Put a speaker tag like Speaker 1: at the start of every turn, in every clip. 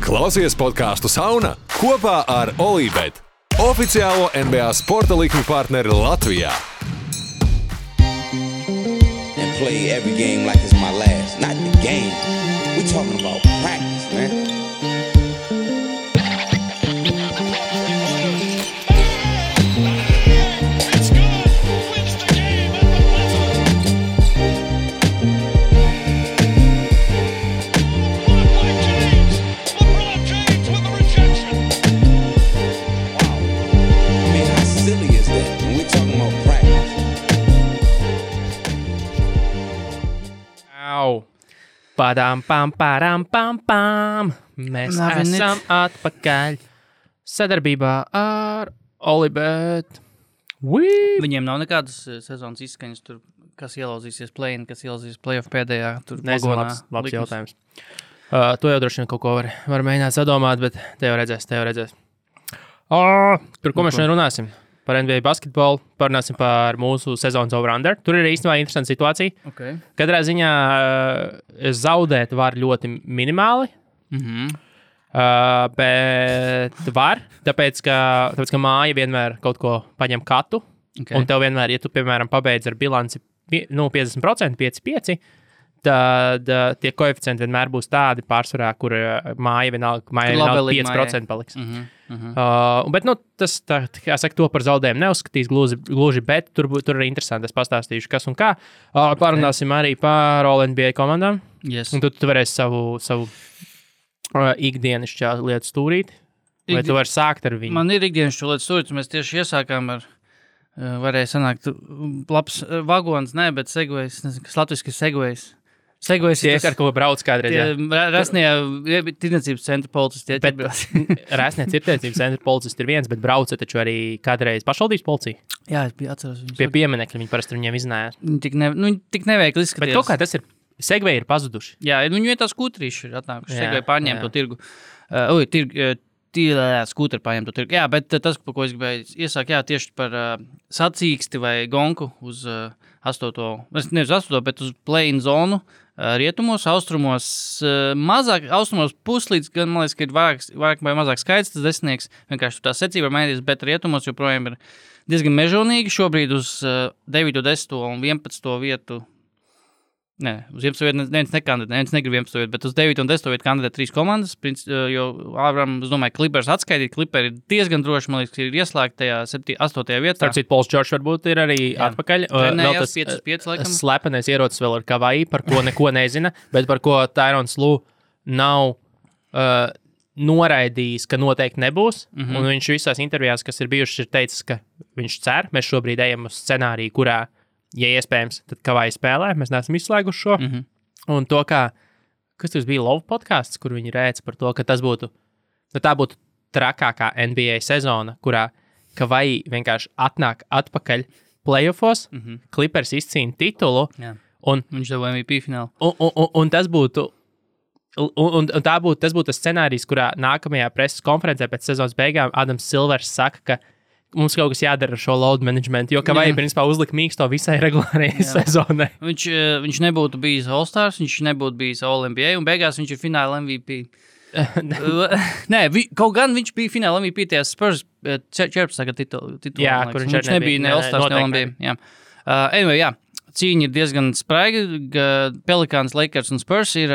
Speaker 1: Klausies podcastu Sauna kopā ar Olībet, oficiālo NBA sporta likmi partneri Latvijā.
Speaker 2: And play every game like it's my last. Not the game. We talking about practice, man.
Speaker 3: Padām, pam. Mēs esam atpakaļ sadarbībā ar Olibet.
Speaker 4: Viņiem nav nekādas sezonas izskaņas tur, kas ielauzīsies play-in, kas ielauzīsies play-off pēdējā.
Speaker 3: Nezinu, labs jautājums. To jau droši vien kaut ko var mēģināt sadomāt, bet te jau redzēs. Par ko mēs šodien runāsim? Par NBA basketbolu, parunāsim par mūsu sezonas over-under. Tur ir īstenībā interesanta situācija.
Speaker 4: Okay.
Speaker 3: Katrā ziņā zaudēt var ļoti minimāli, bet var, tāpēc, ka māja vienmēr kaut ko paņem katu, un tev vienmēr, ja tu, piemēram, pabeidz ar bilanci 50%, 5-5, tad tie koeficienti vienmēr būs tādi pārsvarā, kur māja vienalga 5% paliks. Bet, tas, kā saka, to par zaudējumu neuzskatīs gluži, bet tur ir interesanti, es pastāstīšu, kas un kā. Parunāsim arī par All-NBA komandām.
Speaker 4: Yes.
Speaker 3: Un tu varēsi savu ikdienišķā lietu stūrīt, vai tu vari sākt ar viņu?
Speaker 4: Man ir ikdienišķā lietu stūrīt, mēs tieši iesākām ar, varēja sanākt, labs vagons, bet segvejs, nezinu, kas latviski ir segvejs. Segvejs
Speaker 3: ir tas, ar ko brauc kādreiz, jā.
Speaker 4: Rasnie tirdzniecības centra policisti.
Speaker 3: Rasnie tirdzniecības centra policisti ir viens, bet brauca taču arī kādreiz pašvaldības policija.
Speaker 4: Jā, es atceros viņus.
Speaker 3: Pie pieminekļa viņi parasti viņiem iznājās.
Speaker 4: Viņi tik neveikli izskatījās.
Speaker 3: Bet kaut kā tas ir, segveji ir pazuduši.
Speaker 4: Jā, viņi vietā skūtrīši ir atnākuši. Segveji pārņēma to tirgu. Skūteri pārņēma to tirgu. Jā, bet tas, par ko es gribēju iesākt, tieši par sacīksti vai gonku uz 8. Nevis 8, bet uz play-in zonu. Rietumos, austrumos mazāk, austrumos puslīdz, gan man liekas, ka ir vairāk vai mazāk skaits, tas desmitnieks, vienkārši tā secība var mainīties, bet rietumos joprojām ir diezgan mežonīgi, šobrīd uz 9, 10 un 11 vietu, uz 11 vietu neviens nekandidē, neviens negrib 11 vietu, bet uz 9 un 10 vietu kandidē 3 komandas, jo Āvram, es domāju, Clippers atskaitīt, Clipperi ir diezgan droši, man liekas, ir ieslēgta tajā 8. vietā.
Speaker 3: Starp citu, Pols Džordžs varbūt ir arī atpakaļ.
Speaker 4: Vēl tas 5, laikam.
Speaker 3: Slepenais ierocis vēl ir Kavai, par ko neko nezina, bet par ko Tyrons Lue nav noraidījis, ka noteikti nebūs, un viņš visās intervijās, kas ir bijušas, ir teicis, ka viņš cer, mēs šobrīd ejam uz scenāriju, kurā ja iespējams, tad Kavai spēlē, mēs neesam izslēguši šo. Un to, kas tas bija Love podcasts, kur viņi rēca par to, ka tas būtu, tā būtu trakākā NBA sezona, kurā Kavai vienkārši atnāk atpakaļ playoffos, Clippers izcīna titulu.
Speaker 4: Jā.
Speaker 3: Un
Speaker 4: viņš dabūja MVP finālu.
Speaker 3: Un tas būtu, tas būtu tas scenārijs, kurā nākamajā preses konferencē pēc sezonas beigām Adams Silvers saka, ka mums kaut kas jādara ar šo load management, jo Kavai principā uzlika mīksto visai regulārajai sezonai.
Speaker 4: Viņš nebūtu bijis All-Stars, viņš nebūtu bijis All-NBA, un beigās viņš ir fināla MVP. Kaut gan viņš bija fināla MVP tajā Spurs 14. titulu.
Speaker 3: Jā, kur viņš
Speaker 4: nebija ne All-Stars, ne All-NBA. Anyway, cīņa ir diezgan spraiga. Pelicans, Lakers un Spurs ir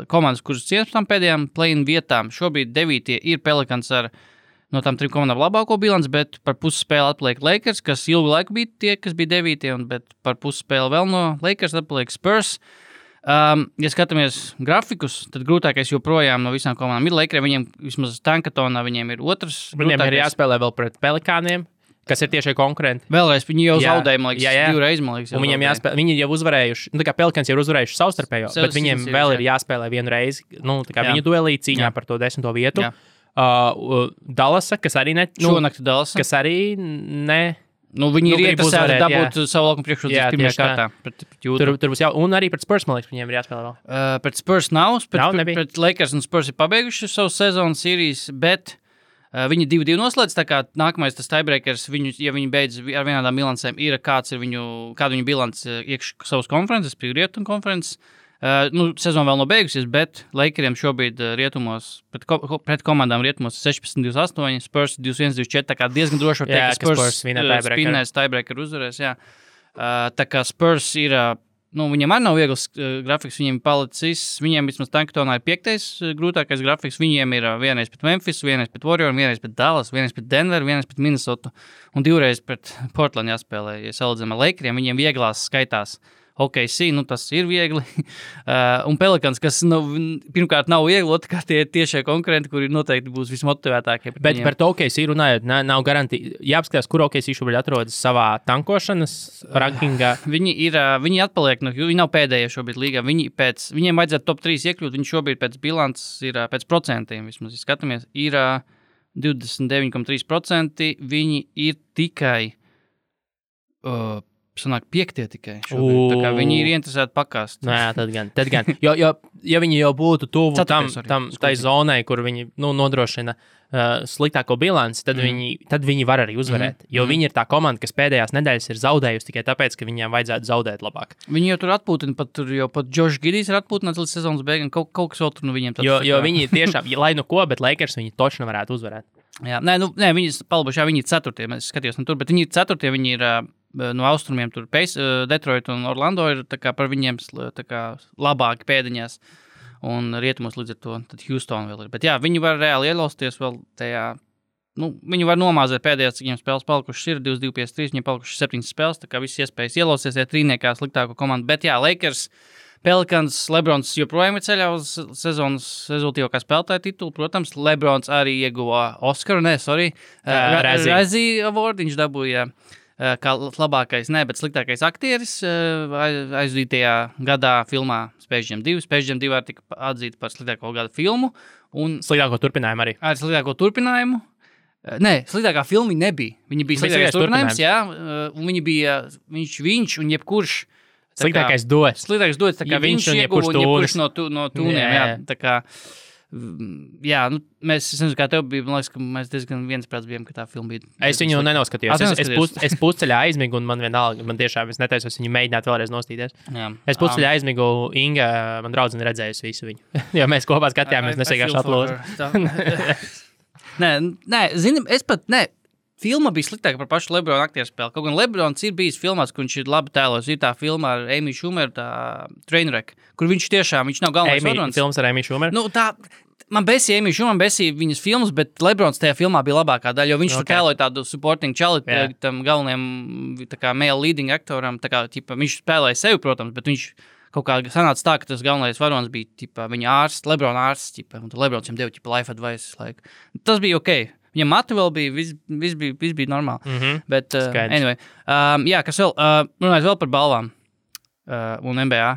Speaker 4: komandas, kuras cienas par tām pēdējām play-in vietām. Šobrīd 9. ir Pelicans ar no tām 3 komandām labāko bilanci, bet par pusspēli atpaliek Lakers, kas ilgu laiku bija tie, kas bija 9. Bet par pusspēli vēl no Lakers atpaliek Spurs. Ja skatāmies grafikus, tad grūtākais joprojām no visām komandām ir Lakers. Viņiem vismaz Tankatonā viņiem ir otrs.
Speaker 3: Viņiem ir jāspēlē vēl pret Pelikāniem, kas ir tiešie konkurenti.
Speaker 4: Vēlreiz, viņi jau zaudēja, man liekas, 2 reizes, man liekas.
Speaker 3: Un viņiem jāspēlē, viņi jau uzvarējuši, tā kā Pelikāns jau uzvarējuši savstarpējo, bet viņiem vēl ir jāspēlē vienu reizi, tā kā viņu duelī cīņā par to 10. vietu.
Speaker 4: Jā.
Speaker 3: Dallasa, kas arī
Speaker 4: šonakt Dallasa.
Speaker 3: Kas arī ne...
Speaker 4: viņi ir iekasēti dabūt savu laukumu priekšrocības pirmajā kārtā.
Speaker 3: Tur būs un arī pret Spurs, man liekas, viņiem ir jāspēlē vēl.
Speaker 4: Pret Spurs nav, pret Lakers un Spurs ir pabeiguši savu sezonas sērijas, bet viņi 2-2 noslēdz, tā kā nākamais tas tiebreakers, ja viņi beidz ar vienādām bilancēm, ir kādu viņu bilanci iekš savas konferences, Rietumu konferences. Sezona vēl nav beigusies, bet Lakeriem šobrīd rietumos, pret komandām rietumos 16-28, Spurs 21-24, tā kā diezgan droši var teikt, ka Spurs spinnēs tiebreaker uzvarēs, jā. Tā kā Spurs ir, viņiem arī nav viegls grafiks, viņiem palicis, viņiem vismaz Tankatonā ir 5. grūtākais grafiks, viņiem ir vienreiz pret Memphis, vienreiz pret Warrior, vienreiz pret Dallas, vienreiz pret Denver, vienreiz pret Minnesota un 2 reizes pret Portland jāspēlē, ja salīdzinām ar Lakeriem, viņiem vieglās skaitās. OKC, tas ir viegli. Un Pelicans, kas pirmkārt nav viegli, otrkārt tie tiešie konkurenti, kuri noteikti būs vismotivētākie.
Speaker 3: Bet par to OKC runājot, nav garantija. Jāapskatās, kur OKC šobrīd atrodas savā tankošanas rankingā.
Speaker 4: Viņi atpaliek, viņi nav pēdējie šobrīd līgā. Viņiem vajadzētu top 3 iekļūt, viņi šobrīd pēc bilants ir pēc procentiem, vismaz skatāmies, ir 29,3%. Viņi ir tikai... sanāk 5 tikai šobrīd. Tā kā viņi ir interesēti pakāst.
Speaker 3: Jā, tad gan. Ja viņi jau būtu tuvu tai zonai, kur viņi nodrošina sliktāko bilanci, tad viņi var arī uzvarēt. Jo viņi ir tā komanda, kas pēdējās nedēļas ir zaudējusi tikai tāpēc, ka viņiem vajadzētu zaudēt labāk.
Speaker 4: Viņi jau tur atpūtina, pat Josh Giddijs ir atpūtināts līdz sezonas beigām, kaut kas vēl tur viņiem tāds.
Speaker 3: Jo viņi tiešām, lai bet Lakers viņi točni varētu uzvarēt.
Speaker 4: Jā, viņi palbuši, viņi ir 4. Es skatījos tur, bet viņi ir 4. Viņi ir no austrumiem tur Detroit un Orlando ir tā kā par viņiem tā kā labāki pēdiņās un rietumos līdz ar to, tad Houston vēl ir. Bet jā, viņi var reāli ielausties vēl tajā, viņi var nomāzēt pēdējās, cik viņiem spēles palikušas ir, 2-2-5-3, viņiem palikušas 7 spēles, tā kā viss iespējas ielausties, ja trīniekā sliktāko komandu. Bet jā, Lakers, Pelicans, Lebrons joprojām ir ceļā uz sezonas rezultīvākā spēlētāja titulu. Protams, Lebrons arī ieguva Oskaru, Razzie Award, viņš dabūja kā labākais, bet sliktākais aktieris aizdītajā gadā filmā Space Jam 2. Space Jam 2 var tika atzīta par sliktāko gada filmu. Un
Speaker 3: sliktāko turpinājumu arī.
Speaker 4: Ar sliktāko turpinājumu. Sliktākā filma nebija. Viņa bija sliktākais turpinājums, jā. Un viņa bija viņš un jebkurš.
Speaker 3: Sliktākais dots.
Speaker 4: Sliktākais dots, tā kā viņš ieguva un jebkurš no tūniem, jā. Tā kā, jā, es nezinu, kā tev bija, man liekas, ka mēs diezgan viensprāts bijām, ka tā filma bija.
Speaker 3: Es viņu nenoskatījos. Es pusceļā aizmigu un man vienalga, man tiešām es netaisos viņu mēģināt vēlreiz nostīties. Jā. Es pusceļā aizmigu, Inga, man draudzene redzējusi visu viņu. Jo mēs kopā skatījāmies, nesīgāši aplūzi.
Speaker 4: Filma bija sliktāka par pašu Lebrona aktieru spēli. Kaut gan Lebrons ir bijis filmās, kur viņš ir labi tēlos. Ir tā filma ar Amy Schumer, tā Trainwreck, kur viņš nav galvenais varonis.
Speaker 3: Filmas ar Amy Schumer?
Speaker 4: Man besīja Amy Schumer, besīja viņas filmas, bet Lebrons tajā filmā bija labākā daļa, jo viņš tur tēloja tādu supporting čali tam galvenajam tā kā male leading aktoram. Tā kā, viņš spēlēja sevi, protams, bet viņš kaut kā sanāca tā, ka tas galvenais varonis bija viņa ārsts, Lebrona ārsts, un Lebrons viņam deva life advice. Tas bija ok. Viņam matu vēl bija, viss bija normāli. Bet, anyway, kas vēl, runājot vēl par balvām un NBA,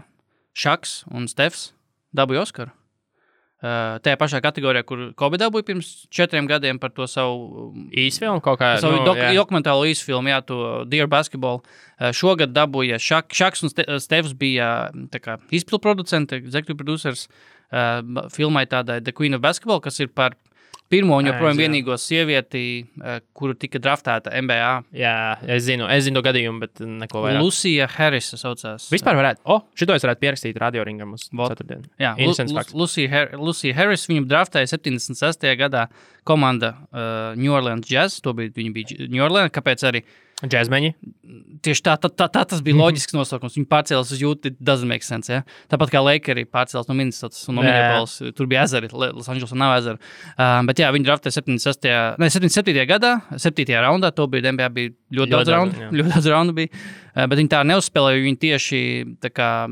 Speaker 4: Šaks un Stefs dabūja Oskaru. Tajā pašā kategorijā, kur Kobe dabūja pirms 4 gadiem par to savu
Speaker 3: īsfilmu kaut kā.
Speaker 4: Savu dokumentālo īsfilmu, to Dear Basketball. Šogad dabūja Šaks un Stefs bija izpilproducenti, executive producers filmai tādai The Queen of Basketball, kas ir par pirmo un joprojām vienīgo sievieti, kuru tika draftēta NBA.
Speaker 3: Jā, es zinu to gadījumu, bet neko vairāk.
Speaker 4: Lucija Harris saucās.
Speaker 3: Vispār varētu, šito es varētu pierakstīt radioringam uz ceturtdienu.
Speaker 4: Jā, Lucija Harris, viņu draftēja 76. gadā komanda New Orleans Jazz, viņi bija New Orleans, kāpēc arī
Speaker 3: Džezmeņi.
Speaker 4: Tieši tā tas bija loģisks nosaukums. Viņi pārcēlās uz Utah, it doesn't make sense, ja? Tāpat kā Lakeri pārcēlās no Minnesotas un no Minneapolis. Tur bija ezeri, Los Angelesā nav ezeru. Bet jā, viņi draftēja 77. gadā, 7. raundā, to bija NBA bija ļoti daudz raundu bija. Bet viņi tā neuzspēlēja, viņi tieši tā kā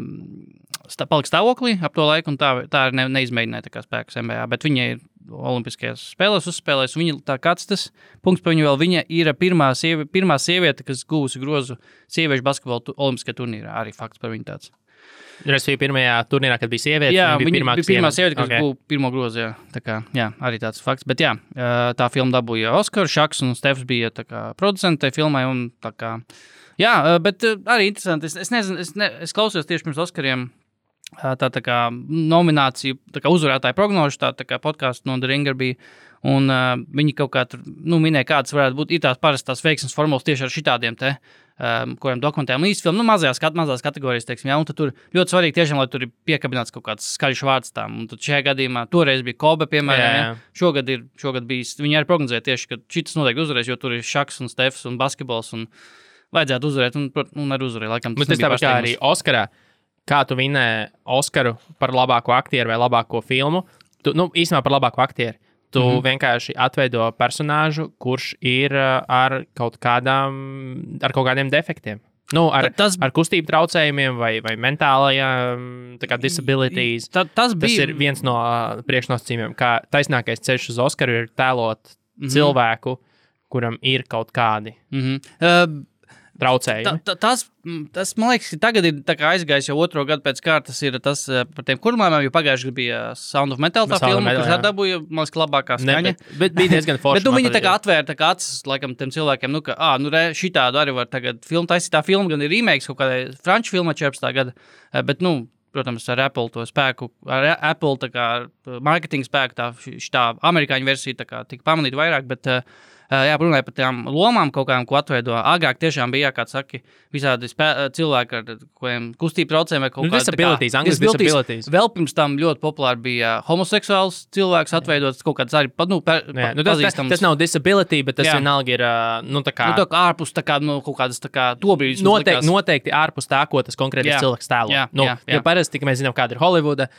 Speaker 4: palika stāvoklī ap to laiku un tā neizmēģināja tā kā spēkus NBA. Bet viņi ir olimpiskajās spēlēs uzspēlēs, viņa tā kāds tas punkts par viņu vēl, viņa ir pirmā sieviete, kas guvusi grozu sieviešu basketbola olimpiskajā turnīrā, arī fakts par viņu tāds.
Speaker 3: Respektīvi pirmajā turnīrā, kad bija sieviete,
Speaker 4: jā, viņa bija pirmā sieviete, kas guva pirmo grozu, jā. Tā kā, jā, arī tāds fakts, bet jā, tā filma dabūja Oskaru, Šaks un Stefs bija tā kā producenti tai filmai un tā kā, jā, bet arī interesanti, es nezinu, es klausījos tieši pirms Oskariem tā kā nomināciju, tā kā uzvarētāju prognožu, tā kā podkāstu no The Ringer bija. Un viņi kaut kā tur minēja, kādas varētu būt tās parastās veiksmes formulas tieši ar šitādiem kuriem dokumentiem īstfilmu, mazās kategorijas, teiksim, un tad tur ļoti svarīgi tiešām, lai tur ir piekabināts kaut kāds skaļš vārds tām. Un tad šajā gadījumā toreiz bija Kobe, piemēram, šogad bijis, viņi arī prognozēja tieši, ka šitas noteikti uzvarēs, jo tur ir šaks un stefs un basketbols un vajadzētu uzvarēt, un arī uzvarēja. Laikam,
Speaker 3: tas tāpat kā arī Oskarā, kā tu vinēji Oskaru par labāko aktieru vai labāko filmu, īstenībā par labāko aktieru. Tu vienkārši atveido personāžu, kurš ir ar kaut kādiem defektiem. Ar kustību traucējumiem vai mentālajām disabilities. Tas ir viens no priekšnosacījumiem, kā taisnākais ceļš uz Oskaru ir tēlot cilvēku, kuram ir kaut kādi traucējumi.
Speaker 4: Tas, man liekas, tagad ir aizgājis jau otro gadu pēc kārtas, ir tas par tiem kurmājumiem, jo pagājuši bija Sound of Metal tā filma, kurš dabūja, man liekas, labākā skaņa.
Speaker 3: Bet bija diezgan forši.
Speaker 4: Bet viņi atvēra acis, laikam, tiem cilvēkiem, šitādu arī var tagad filmu taisīt. Tā filma gan ir remakes kaut kādai franču filmai 14. gada, bet, protams, ar Apple to spēku, ar Apple marketinga spēku, šitā amerikāņu versija tika pamanīta vairāk, bet runāja par tām lomām kaut kādām, ko atveido. Agrāk tiešām bija, kā saki, visādi cilvēki ar kustību traucējumiem vai kaut kādā
Speaker 3: disabilities.
Speaker 4: Vēl pirms tam ļoti populāri bija homoseksuāls cilvēks atveidot kaut kāds arī pazīstams.
Speaker 3: Tas nav disability, bet tas vienalga ir,
Speaker 4: ārpus kaut kādas tobrīdis.
Speaker 3: Noteikti ārpus tā, ko tas konkrētais cilvēks tēlo. Jo parasti, mēs zinām, kāda ir Holivuda,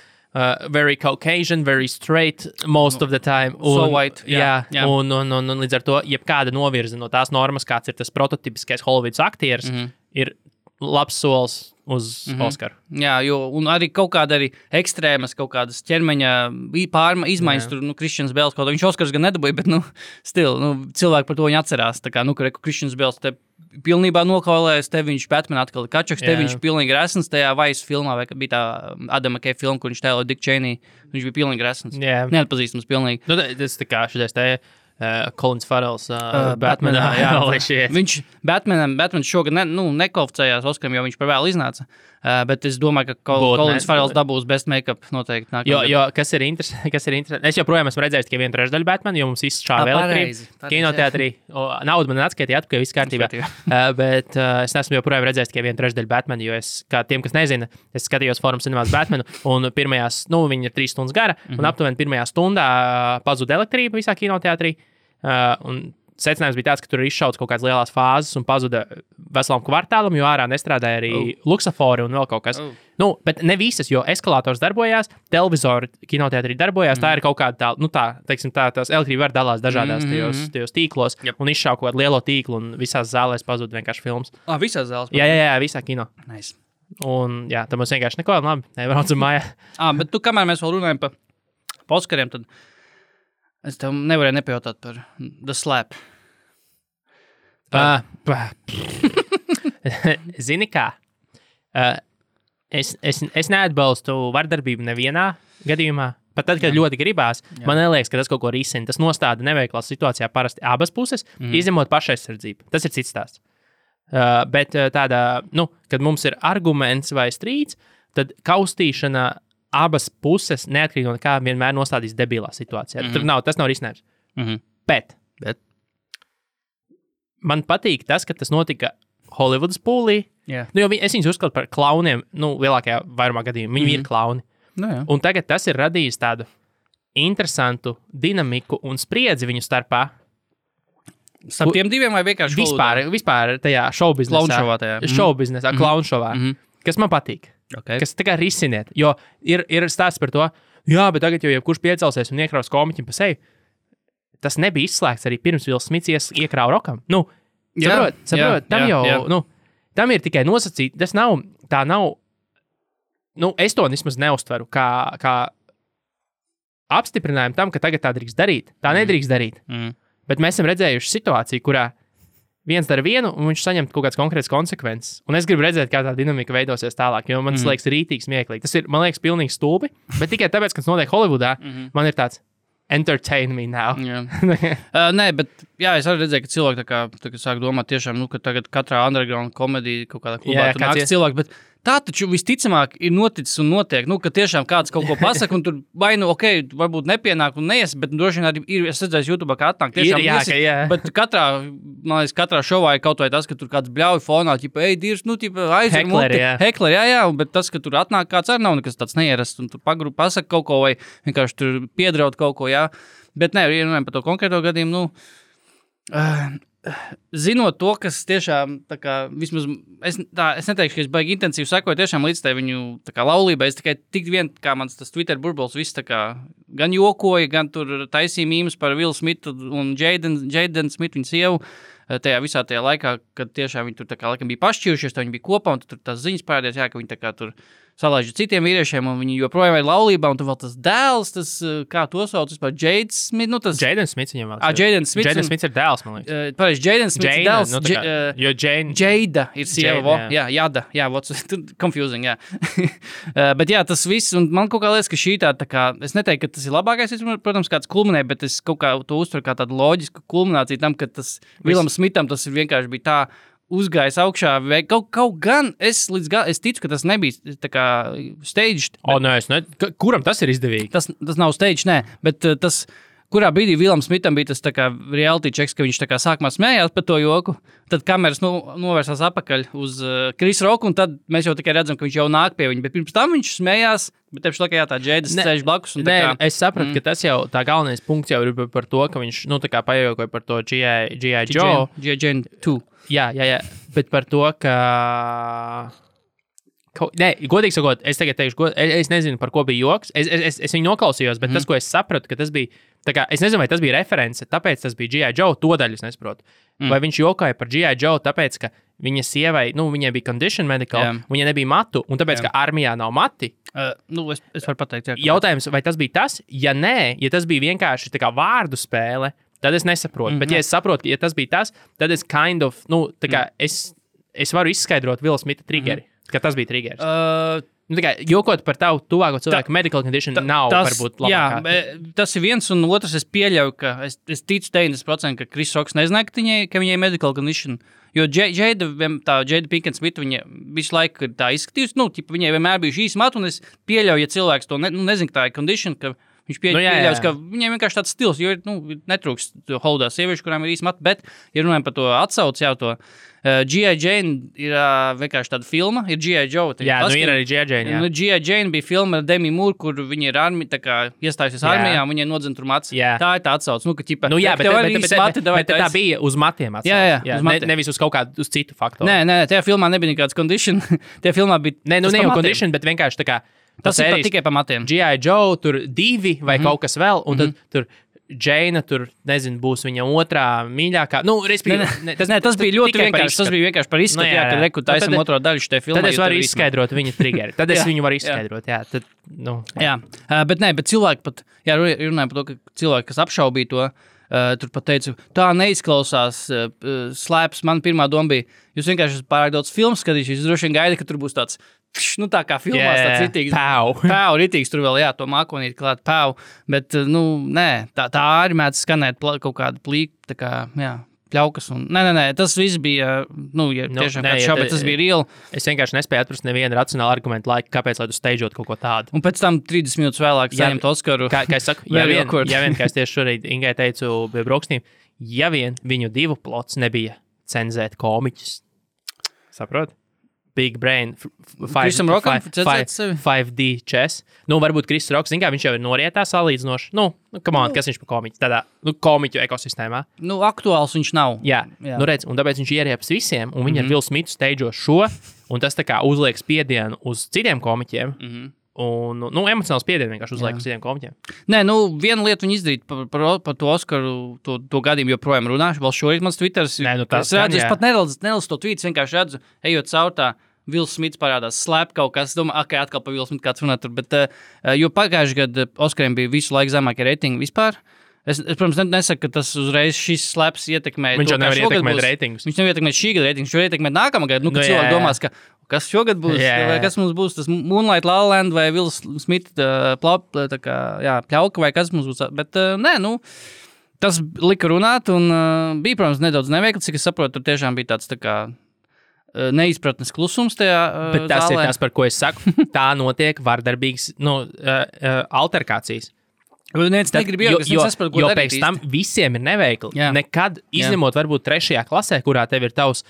Speaker 3: very Caucasian, very straight most of the time.
Speaker 4: So white.
Speaker 3: Un līdz ar to, jebkāda novirze no tās normas, kāds ir tas prototipiskais Holivudas aktieris, ir labs solis uz Oskaru.
Speaker 4: Jā, un arī kaut kāda arī ekstrēmas, kaut kādas ķermeņa izmaiņas, tur, Kristians Bēls, kaut kā viņš Oskars gan nedabūja, bet, cilvēki par to viņu atcerās, tā kā, Kristians Bēls te pilnībā nokaulējas, te viņš Batman atkal kačaks, te viņš pilnīgi resns tajā Vice filmā, vai bija tā Adama Kay filma, kur viņš tēlo Dick Cheney, viņš bija pilnīgi resns. Neatpazīstams pilnīgi.
Speaker 3: Tas tā kā šitais te Colins Farrells Batmanā.
Speaker 4: Viņš Batman šogad nekvalificējās Oskaram, jo viņš par vēlu iznāca. Bet es domāju, ka Colins Farrells dabūs best make-up noteikti.
Speaker 3: Jo kas ir interesanti? Es joprojām esmu redzējis tikai 1/3 Batmanu, jo mums izšāva elektrība kinoteātrī. Naudu man atskaitīja atpakaļ, viss kārtībā. Bet es neesmu joprojām redzējis tikai 1/3 Batmanu, jo es, kā tiem, kas nezina, es skatījos Forum Cinemās Batmanu, un pirmajās, viņi ir 3 stundas gara, un aptuveni pirmajā stundā pazuda elektrība visā kinoteātrī. Un secinājums bija tāds, ka tur ir izšauts kaut kādas lielas fāzes un pazuda veselam kvartālam, jo ārā nestrādāja arī luksafori un vēl kaut kas. Bet ne visas, jo eskalators darbojās, televizori kinoteātrī darbojās, tā ir kaut kāda tās elektrība var dalās dažādās tajos tīklos un izšauj kaut kādu lielo tīklu un visās zālēs pazuda vienkārši filmas.
Speaker 4: Visās zālēs?
Speaker 3: Jā, visā kino.
Speaker 4: Nice.
Speaker 3: Un tad mums vienkārši neko, labi, nebraucam mājā.
Speaker 4: Bet kamēr mēs vēl runājam par Oskariem, tad es tev nevarēju nepajautāt par The Slap.
Speaker 3: Zini kā? Es neatbalstu vardarbību nevienā gadījumā. Pat tad, kad ļoti gribās, man neliekas, ka tas kaut ko risina. Tas nostāda neveiklā situācijā parasti abas puses, izņemot pašaizsardzību. Tas ir cits stāsts. Bet tādā, kad mums ir arguments vai strīds, tad kaustīšana abas puses, neatkarīgi no kā, vienmēr nostādīs debilā situācijā. Tas nav risinājums. Bet man patīk tas, ka tas notika Holivudas pūlī. Jo es viņus uzskatu par klauniem, lielākajā vairumā gadījumā. Viņi ir klauni. Un tagad tas ir radījis tādu interesantu dinamiku un spriedzi viņu starpā.
Speaker 4: Starp tiem diviem vai vienkārši
Speaker 3: vispār tajā šovbiznesā, klaunšovā, kas man patīk.
Speaker 4: Okay.
Speaker 3: Kas tā kā risiniet, jo ir stāsts par to, bet tagad jau jebkurš piecelsies un iekraus komiķim pa seju. Tas nebija izslēgts arī pirms Will Smiths iekrāva rokam. Saprot, tam ir tikai nosacīti, tas nav, es to vismaz neuztveru kā apstiprinājumu tam, ka tagad tā drīkst darīt. Tā nedrīkst darīt. Bet mēs esam redzējuši situāciju, kurā viens dara vienu, un viņš saņem kaut kādas konkrētas konsekvences. Un es gribu redzēt, kā tā dinamika veidosies tālāk, jo man tas liekas rītīgi smieklīgi. Tas ir, man liekas, pilnīgi stulbi, bet tikai tāpēc, ka tas notiek Holivudā, man ir tāds entertain me now.
Speaker 4: Nē, bet es arī redzēju, ka cilvēki tā kā sāk domāt tiešām, ka tagad katrā underground komēdija kaut kādā klubā tur nāks cilvēki, bet tā taču visticamāk ir noticis un notiek, ka tiešām kāds kaut ko pasaka, un tur vai varbūt nepienāk un neies, bet droši vien arī ir, es redzēju YouTube, kā atnāk tiešām iesi, bet katrā šovā ir kaut vai tas, ka tur kāds bļauj fonā, Dievs, aizver muti, hekleri, bet tas, ka tur atnāk kāds arī nav nekas tāds neierasts, un tur pasaka kaut ko, vai vienkārši tur piedraud kaut ko, bet nē, runājam par to konkrēto gadījumu, zinot to, kas tiešām, tā kā, vismaz, es neteikšu, ka es baigi intensīvi sekoju tiešām līdz tai viņu, tā kā, laulībai, es tikai tik vien, kā mans tas Twitter burbulis, viss, tā kā, gan jokoja, gan tur taisīja mīmes par Will Smithu un Jaden Smithu, viņas sievu, tajā visā tajā laikā, kad tiešām viņi tur, tā kā, laikam bija pašķīrušies, viņi bija kopā, un tur tās ziņas parādījās, ka viņi tā kā tur salaiž citiem vīriešiem, un viņi joprojām ir laulībā, un tur vēl tas dēls, tas, kā to sauc, vispār, Jade Smith,
Speaker 3: Jaden Smith viņam vēl.
Speaker 4: Jaden Smith.
Speaker 3: Jaden Smith ir dēls, man liekas.
Speaker 4: Pareiz, Jaden Smith ir dēls.
Speaker 3: Jo Jane.
Speaker 4: Jada ir sieva, Jada, what's confusing, bet tas viss, un man kaut kā liekas, ka šī tā kā, es neteiktu, ka tas ir labākais, protams, kāds kulminē, bet es kaut kā to uztveru kā tādu loģisku kulmināciju tam, ka tas Willam Smitham tas vienkārši bija tā, uzgājis augšā, vai kaut gan es ticu, ka tas nebija tā kā staged.
Speaker 3: Kuram tas ir izdevīgi?
Speaker 4: Tas nav staged, nē, bet tas, kurā brīdī Willam Smitham bija tas tā kā reality checks, ka viņš tā kā sākumā smējās par to joku, tad kameras novērsās apakaļ uz Chris Rocku, un tad mēs jau tikai redzam, ka viņš jau nāk pie viņa, bet pirms tam viņš smējās, bet tepši laikā tā Jēdas sēž blakus.
Speaker 3: Es sapratu, ka tas jau, tā galvenais punkts jau ir par to, ka viņš, tā kā pajokoja par to G.I. Joe.
Speaker 4: G.I. Jane 2.
Speaker 3: Jā, bet par to, ka... godīgi sakot, es tagad teikšu, es nezinu, par ko bija joks. Es viņu noklausījos, bet tas, ko es sapratu, ka tas bija, tā kā, es nezinu, vai tas bija reference, tāpēc tas bija G.I. Joe, to daļu es nesaprotu. Vai viņš jokoja par G.I. Joe, tāpēc, ka viņa sievai, viņai bija condition medical, viņai nebija matu, un tāpēc, ka armijā nav mati.
Speaker 4: Es varu pateikt,
Speaker 3: Jautājums, vai tas bija tas? Ja nē, ja tas bija vienkārši tā kā vārdu spēle, tad es nesaprotu. Bet, ja es saprotu, ja tas bija tas, tad es tā kā es varu izskaidrot Willa Smitha triggeri, ka tas bija triggeris. Jokot par tavu tuvāko cilvēku medical condition nav varbūt labākā.
Speaker 4: Jā, tas ir viens, un otrs es pieļauju, ka es ticu 90%, ka Chris Rocks nezināja, ka viņai medical condition. Jo Jada Pinkett Smith, viņa visu laiku tā izskatījusi, viņai vienmēr bija šīs matu, un es pieļauju, ja cilvēks to nezinu, ka tā ir condition, ka viņš pieļaus, ka viņiem vienkārši tāds stils, jo netrūkst Hollywoodā sieviešu, kurām ir īsti mati, bet, ja runājam par to atsauci jau to, G.I. Jane ir vienkārši tāda filma, ir G.I. Joe.
Speaker 3: Ir arī G.I. Jane,
Speaker 4: G.I. Jane bija filma ar Demi Moore, kur viņa ir iestājusies armijā, un viņai nodzen tur matus. Tā ir tā atsauc.
Speaker 3: Bet tā bija uz matiem atsauc.
Speaker 4: Jā,
Speaker 3: nevis uz kaut kādu, uz citu faktoru.
Speaker 4: Nē, tajā filmā nebija nekāds condition. Tajā filmā bija...
Speaker 3: Ne jau condition, bet vienkārši tā kā...
Speaker 4: Tas ir tikai pa matiem.
Speaker 3: G.I. Joe, tur 2 vai kaut kas vēl, un tad tur Džeina, tur, nezinu, būs viņa otrā mīļākā.
Speaker 4: Tas bija ļoti vienkārši. Tas bija vienkārši par izskatu, kad reku taisam otro daļu šitai filmai.
Speaker 3: Tad es varu izskaidrot viņa triggeri. Tad es viņu varu izskaidrot,
Speaker 4: bet cilvēki pat, runājam par to, ka cilvēki, kas apšaubīja to, tur pat teicu, tā neizklausās slēps. Man pirmā doma bija, jūs vienkārši pārāk daudz filmu skatījušies, jūs droši vien gaida, ka tur būs tāds, tā kā filmās tāds ritīgs. Pau, ritīgs, tur vēl, to mākonīt klāt, pau. Bet, nē, tā arī mēdz skanēt kaut kādu plīku, tā kā, pļaukas. Nē, tas viss bija, tiešām kāds šau, bet tas bija real.
Speaker 3: Es vienkārši nespēju atrast nevienu racionālu argumentu laiku, kāpēc, lai tu steidžot kaut ko tādu.
Speaker 4: Un pēc tam 30 minūtes vēlāk saņemt Oskaru.
Speaker 3: Kā es saku, ja vien, kā es tieši šorīt Ingai teicu pie brokastīm, ja vien viņu divu plots nebija cenzēt komiķus. Saprot? Big Brain, 5D chess. Varbūt Chris Rocks, viņš jau ir norietā salīdzinoši. Kas viņš par komiķu? Tādā, komiķu ekosistēmā.
Speaker 4: Aktuāls viņš nav.
Speaker 3: Jā. Redz, un tāpēc viņš ieriepas visiem, un viņi ar Will Smithu steidžo šo, un tas tā kā uzliek spiedienu uz citiem komiķiem. Un, emocionāls spiedienu vienkārši uzliek uz citiem komiķiem.
Speaker 4: Nē, viena lieta viņi izdarīt par to Oskaru, to gadījumu joprojām runāšu. Vēl šorīt mans Twitters. Es pat nelasu to tweets, vienkārši redzu, ejot caur tā. Will Smiths parādās, slēp kaut kas. Domāju, atkal par Will Smithu kāds runā tur. Bet, jo pagājuši gadu Oskariem bija visu laiku zemākie reitingi vispār. Es protams, nesaku, ka tas uzreiz šis slēps ietekmē.
Speaker 3: Viņš jau nevar ietekmēt reitingus.
Speaker 4: Viņš nevar ietekmēt šī gada reitingus, viņš jau ietekmē nākamā gada. Ka cilvēki domās, ka kas šogad būs, vai kas mums būs, tas Moonlight La La Land vai Will Smith pļauka vai kas mums būs. Bet nē, tas lika runāt un bija, protams, nedaudz neveikli, cik es saprotu, tur tiešām bija tāds tā kā neizpratnes klusums tajā
Speaker 3: Bet tas
Speaker 4: zālē.
Speaker 3: ir tas, par ko es saku. Tā notiek vardarbīgas alterkācijas.
Speaker 4: Neviens negrib iejaukties,
Speaker 3: jo
Speaker 4: nesaprot, ko darīt
Speaker 3: pēc tam visiem ir neveikli.
Speaker 4: Jā.
Speaker 3: Nekad, izņemot varbūt 3. klasē, kurā tev ir tavs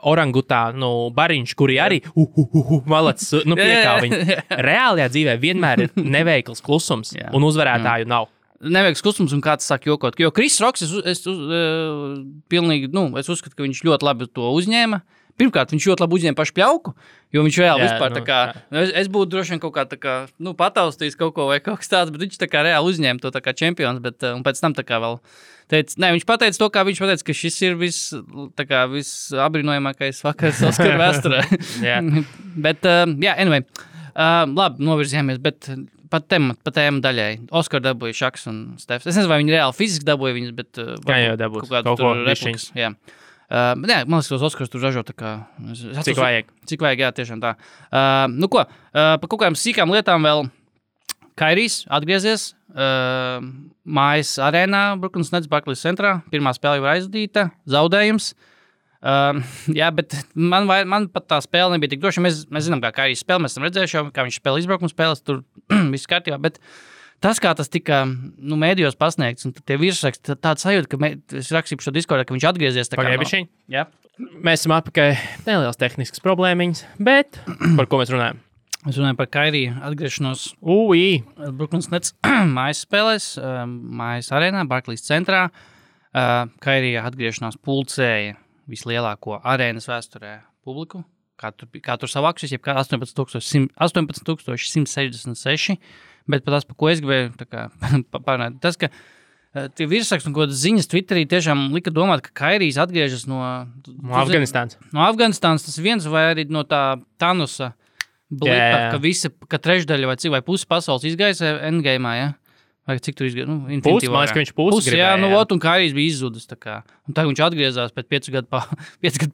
Speaker 3: orangutānu bariņš, kuri arī malacis, piekā viņi. Reālajā dzīvē vienmēr ir neveikls klusums, un uzvarētāju nav.
Speaker 4: Neveiks klusums un kāds sāk jokot. Jo Chris Rocks, es uzskatu, ka viņš ļoti labi to uzņēma. Pirmkārt, viņš ļoti labi uzņēma pašu pļauku, jo viņš reāli vispār tā kā, es būtu droši vien kaut kā tā kā, pataustījis kaut ko vai kaut kas tāds, bet viņš tā kā reāli uzņēma to tā kā čempions, bet un pēc tam tā kā vēl teica, viņš pateica to, kā viņš pateica, ka šis ir viss abrīnojamākais vakars Oskara vēsturē. Bet, anyway, labi, novirzījāmies, bet pa tēmu daļai. Oskar dabūja Šaks un Stefs. Es nezinu, vai viņi reāli fiziski dabūja viņus, bet
Speaker 3: jau dabūs.
Speaker 4: kaut kādu tur replikas. Jā. Man liekas, tos Oskars tur ražo tā kā...
Speaker 3: Cik vajag.
Speaker 4: Cik vajag, jā, tiešām tā. Pa kaut kādām sīkām lietām vēl Kairijs atgriezies mājas arēnā Brooklyn Nets Barclays centrā. Pirmā spēle jau aizvadīta, zaudējums. Bet man pat tā spēle nebija tik droša. Mēs zinām, kā Kairijs spēle, mēs esam redzējuši jau, kā viņš spēlē izbraukuma spēles, tur viss kārtībā, bet tas, kā tas tika mēdījos pasniegts, un tie virsraksti, tāda sajūta, ka es rakstīju šo Discordā, ka viņš atgriezies.
Speaker 3: Pagaidišiņ.
Speaker 4: Jā.
Speaker 3: Mēs esam atpakaļ nelielas tehniskas problēmiņas, bet par ko mēs runājam?
Speaker 4: Mēs runājam par Kairiju atgriešanos Brooklyn Nets mājas spēlēs, mājas arēnā, Barclays centrā. Kairija atgriešanās pulcēja vislielāko arēnas vēsturē publiku, kā tur savāksies, jeb kā 18,166, bet par ko es gribēju pārnāt, tas, ka tie virsraksti un kādas ziņas Twitterī tiešām lika domāt, ka Kairijs atgriežas no
Speaker 3: Afganistānas.
Speaker 4: No Afganistānas tas viens vai arī no tā Thanusa blipa, ka trešdaļa vai pusi pasaules izgaisa endgame'ā, ja? Vai cik tur izgāja?
Speaker 3: Pusi, man liekas, ka viņš pusi gribēja.
Speaker 4: Jā, un Kairijs bija izzudis. Un tagad viņš atgriezās pēc 5 gadu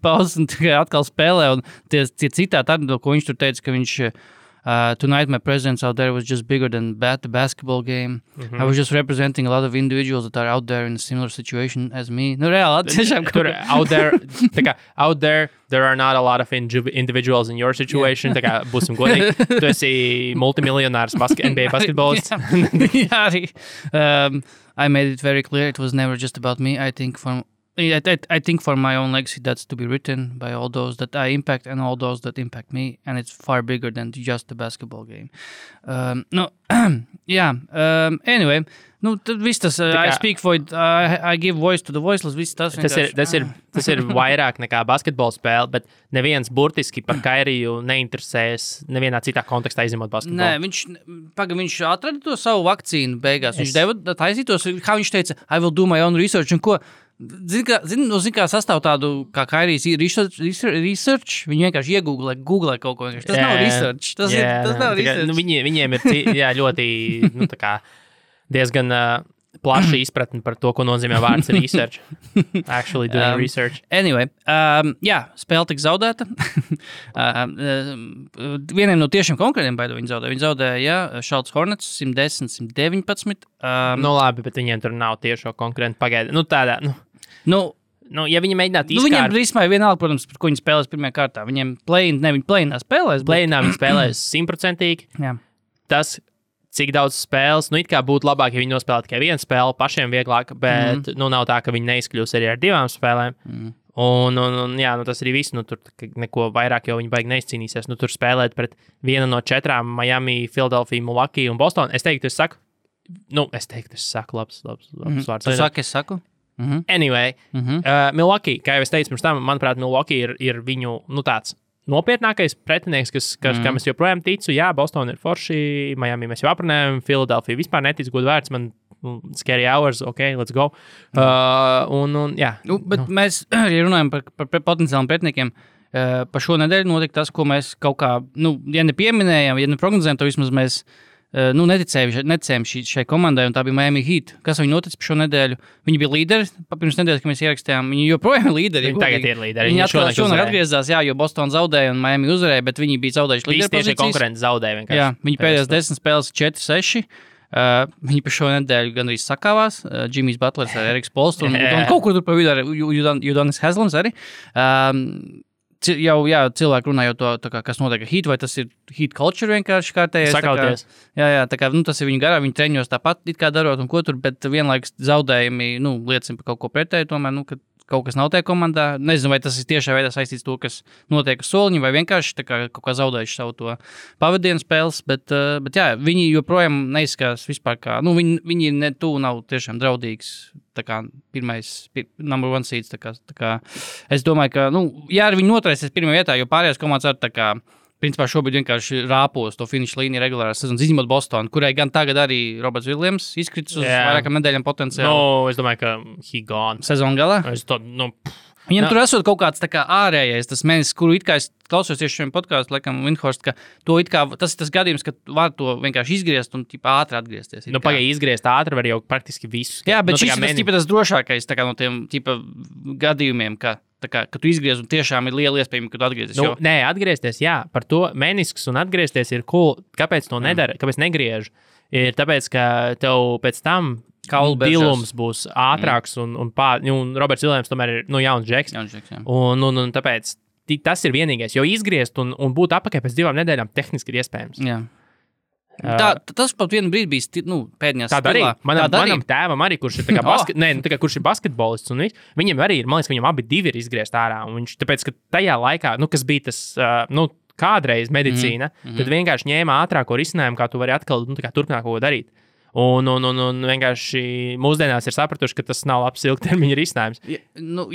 Speaker 4: pauzes un atkal spēlē. Un tie citāti, ko viņš tur teica, ka viņš tonight my presence out there was just bigger than the basketball game. I was just representing a lot of individuals that are out there in a similar situation as me. Reāli, tiešām.
Speaker 3: Out there, there are not a lot of individuals in your situation. Tā kā būsim godīgi. Tu esi multimiljonārs NBA basketbolists.
Speaker 4: Jā, arī. I made it very clear it was never just about me. I think for my own legacy that's to be written by all those that I impact and all those that impact me, and it's far bigger than just the basketball game. Anyway, tad viss tas, I speak for it, I give voice to the voiceless, viss tas.
Speaker 3: Tas ir vairāk nekā basketbola spēle, bet neviens burtiski par Kairiju neinteresējas nevienā citā kontekstā izņemot basketbolu.
Speaker 4: Nē, viņš atrada to savu vakcīnu beigās. Viņš deva taisītos, kā viņš teica, I will do my own research, un ko? Zini, kā sastāv tādu, kā Kairijs research, viņi vienkārši iegooglē kaut ko. Tas nav research. Tas nav research.
Speaker 3: Viņiem ir ļoti, diezgan plaša izpratne par to, ko nozīmē vārds research. Actually doing research.
Speaker 4: Anyway, spēle tika zaudēta. Vieniem no tiešiem konkrētiem baidu viņi zaudēja. Viņi zaudēja, Charlotte Hornets 110-119.
Speaker 3: Labi, bet viņiem tur nav tiešo konkurentu pagaida. Ja viņi mēģinātu izkārt...
Speaker 4: Viņiem rismā ir vienalga, protams, par ko viņi spēlēs pirmajā kārtā. Viņiem viņi play-inā spēlēs.
Speaker 3: Play-inā viņi spēlēs 100%.
Speaker 4: Jā.
Speaker 3: Tas, cik daudz spēles, it kā būtu labāk, ja viņi nospēlē tikai vienu spēli, pašiem vieglāk, bet nav tā, ka viņi neizkļūs arī ar 2 spēlēm. Tas arī viss, tur neko vairāk jau viņi baigi neizcīnīsies. Tur spēlēt pret vienu no 4 Miami, Philadelphia, Milwaukee un Boston. Es teiktu, es saku labs vārds.
Speaker 4: Tu saki, es saku?
Speaker 3: Anyway, Milwaukee, kā jau es teicu pirms tam, manuprāt, Milwaukee ir viņu, tāds nopietnākais pretinieks, kam es joprojām ticu. Jā, Boston ir forši, Miami mēs jau aprunājam, Philadelphia vispār netic, godu vērts, man scary hours, ok, let's go.
Speaker 4: Mēs, ja runājam par potenciāliem pretiniekiem, par šo nedēļu notika tas, ko mēs kaut kā, ja nepieminējam, ja neprognozējam, to vismaz mēs neticējām šai komandai, un tā bija Miami Heat. Kas viņi notic par šo nedēļu? Viņi bija līderi, pirms nedēļas, kad mēs ierakstījām. Viņi joprojām ir līderi.
Speaker 3: Viņi tagad ir līderi.
Speaker 4: Viņi šonakt atgriezās, jo Boston zaudēja un Miami uzvarēja, bet viņi bija zaudējuši līderi pozīcijas.
Speaker 3: Visi konkurenti zaudēja vienkārši.
Speaker 4: Jā, viņi pēdējās 10 spēles 4-6. Viņi par šo nedēļu gandrīz sakāvās. Jimmys Butlers ar Eriks Polstru un kaut kur tur pa vidu ar Udonis Haslams arī. cilvēki runā jau to, kā, kas notiek ar Heat, vai tas ir Heat culture vienkārši kārtējais.
Speaker 3: Sakauties.
Speaker 4: Jā, tā kā, tas ir viņa garā, viņi treņos tāpat it kā darot un ko tur, bet vienlaikus zaudējumi, liecina par kaut ko pretēju tomēr, ka kaut kas nav tajā komandā. Nezinu, vai tas ir tiešā veidā saistīts to, kas notiek uz soliņa, vai vienkārši tā kā kaut kā zaudējuši savu to pavadienu spēles, bet jā, viņi joprojām neizskatās vispār kā, viņi ne tuvu nav tiešām draudīgs, tā kā number one seeds, tā kā es domāju, ka, jā, viņi noturēsies pirmajā vietā, jo pārējās komandas ar tā kā, principā šobrīd vienkārši rāpos to finišu līniju regulārās sezonas, izņemot Bostonu, kurai gan tagad arī Roberts Viljams izkritis uz vairākām nedēļām potenciāli.
Speaker 3: Es domāju, ka he gone.
Speaker 4: Sezonu galā? Viņam tur esot kaut kāds tā kā ārējais, tas mēnesis, kuru it kā es klausos tieši šiem podkāstu, laikam, Windhorst, ka to it kā, tas ir tas gadījums, ka var to vienkārši izgriezt un ātri atgriezties.
Speaker 3: Pagaidi izgriezt ātri var jau praktiski visu.
Speaker 4: Jā, bet šis ir tas drošākais tā kā no tiem gadījumiem, ka tu izgriez un tiešām ir liela iespējama, ka tu atgriezies.
Speaker 3: Nē, atgriezties, jā, par to menisks un atgriezties ir cool. Kāpēc to nedara? Kāpēc negriež? Ir tāpēc, ka tev pēc tam dilums būs ātrāks un Roberts Viljams tomēr ir jauns džeks. Un tāpēc tas ir vienīgais, jo izgriezt un būt atpakaļ pēc 2 nedēļām tehniski ir iespējams.
Speaker 4: Jā. Tas pat vienu brīdi bija pēdējās
Speaker 3: tādā arī. Manam tēvam arī, kurš ir, kurš ir basketbolists, un viņam arī ir, man liekas, viņam abi divi ir izgriezt ārā. Un viņš, tāpēc, ka tajā laikā, kas bija tas, kādreiz medicīna, tad vienkārši ņēma ātrāko risinājumu, kā tu vari atkal turpināt kaut ko darīt. Un vienkārši mūsdienās ir sapratuši, ka tas nav labs ilgtermiņa risinājums.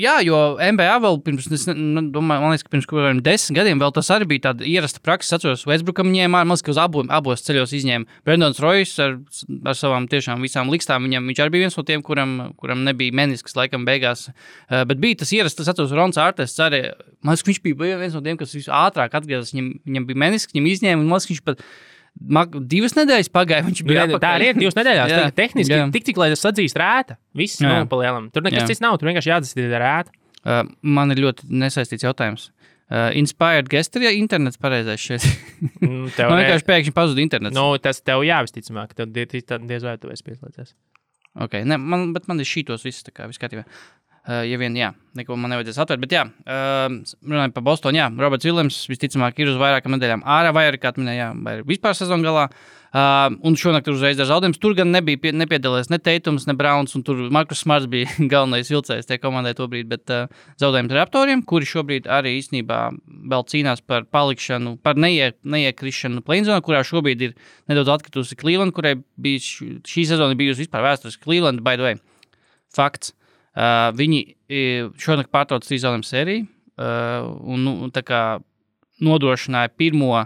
Speaker 4: Jā, jo NBA vēl pirms, man liekas, ka pirms 10 gadiem vēl tas arī bija tāda ierasta praksa. Es atceros, Westbrookam ņēma, man liekas, ka uz abos ceļos izņēma Brandons Royce ar savām tiešām visām likstām. Viņš arī bija viens no tiem, kuram nebija menisks laikam beigās. Bet bija tas ierasta, es atceros, Rons Artests arī, man liekas, viņš bija viens no tiem, kas visu ātrāk atgriezās. Viņam bija menisks, viņam izņēma, un man liekas, viņš pat 2 nedēļas pagāja, viņš bija apakaļ. Tā
Speaker 3: arī ir 2 nedēļās. Jā, tehniski, cik lai tas atzīst rēta. Viss pa lielam. Tur nekas cits nav, tur vienkārši jāatzīst rēta.
Speaker 4: Man ir ļoti nesaistīts jautājums. Inspired guest ir internets pareizais šeit. Man vienkārši pēkšņi pazuda internets.
Speaker 3: Tas tev jāvisticamāk, tev diez vai tu esi pieslēdzies.
Speaker 4: Ok, bet man ir šītos viss, tā kā viss kārtībā. Ja vien, jā, neko man nevajadzēs atvērt, bet jā, runājot par Bostonu, jā, Roberts Viljams visticamāk ir uz vairākām nedēļām ārā, vai arī, kā minēja, vai arī vispār sezonu galā, un šonakt uzreiz ar zaudējumus. Tur gan nepiedalījās ne Teitums, ne Browns, un tur Markus Smarts bija galvenais vilcējs tie komandai tobrīd, bet zaudējums Raptoriem, kuri šobrīd arī īstenībā vēl cīnās par palikšanu, par neiekrišanu play-in-zonā, kurā šobrīd ir nedaudz atkritusi Cleveland, kurai bija šī sezona bijusi vispār vēsturiski Cleveland, by the way. Fakts. Viņi šonakt pārtrauc 3 zaudējumu sēriju un tā kā nodrošināja pirmo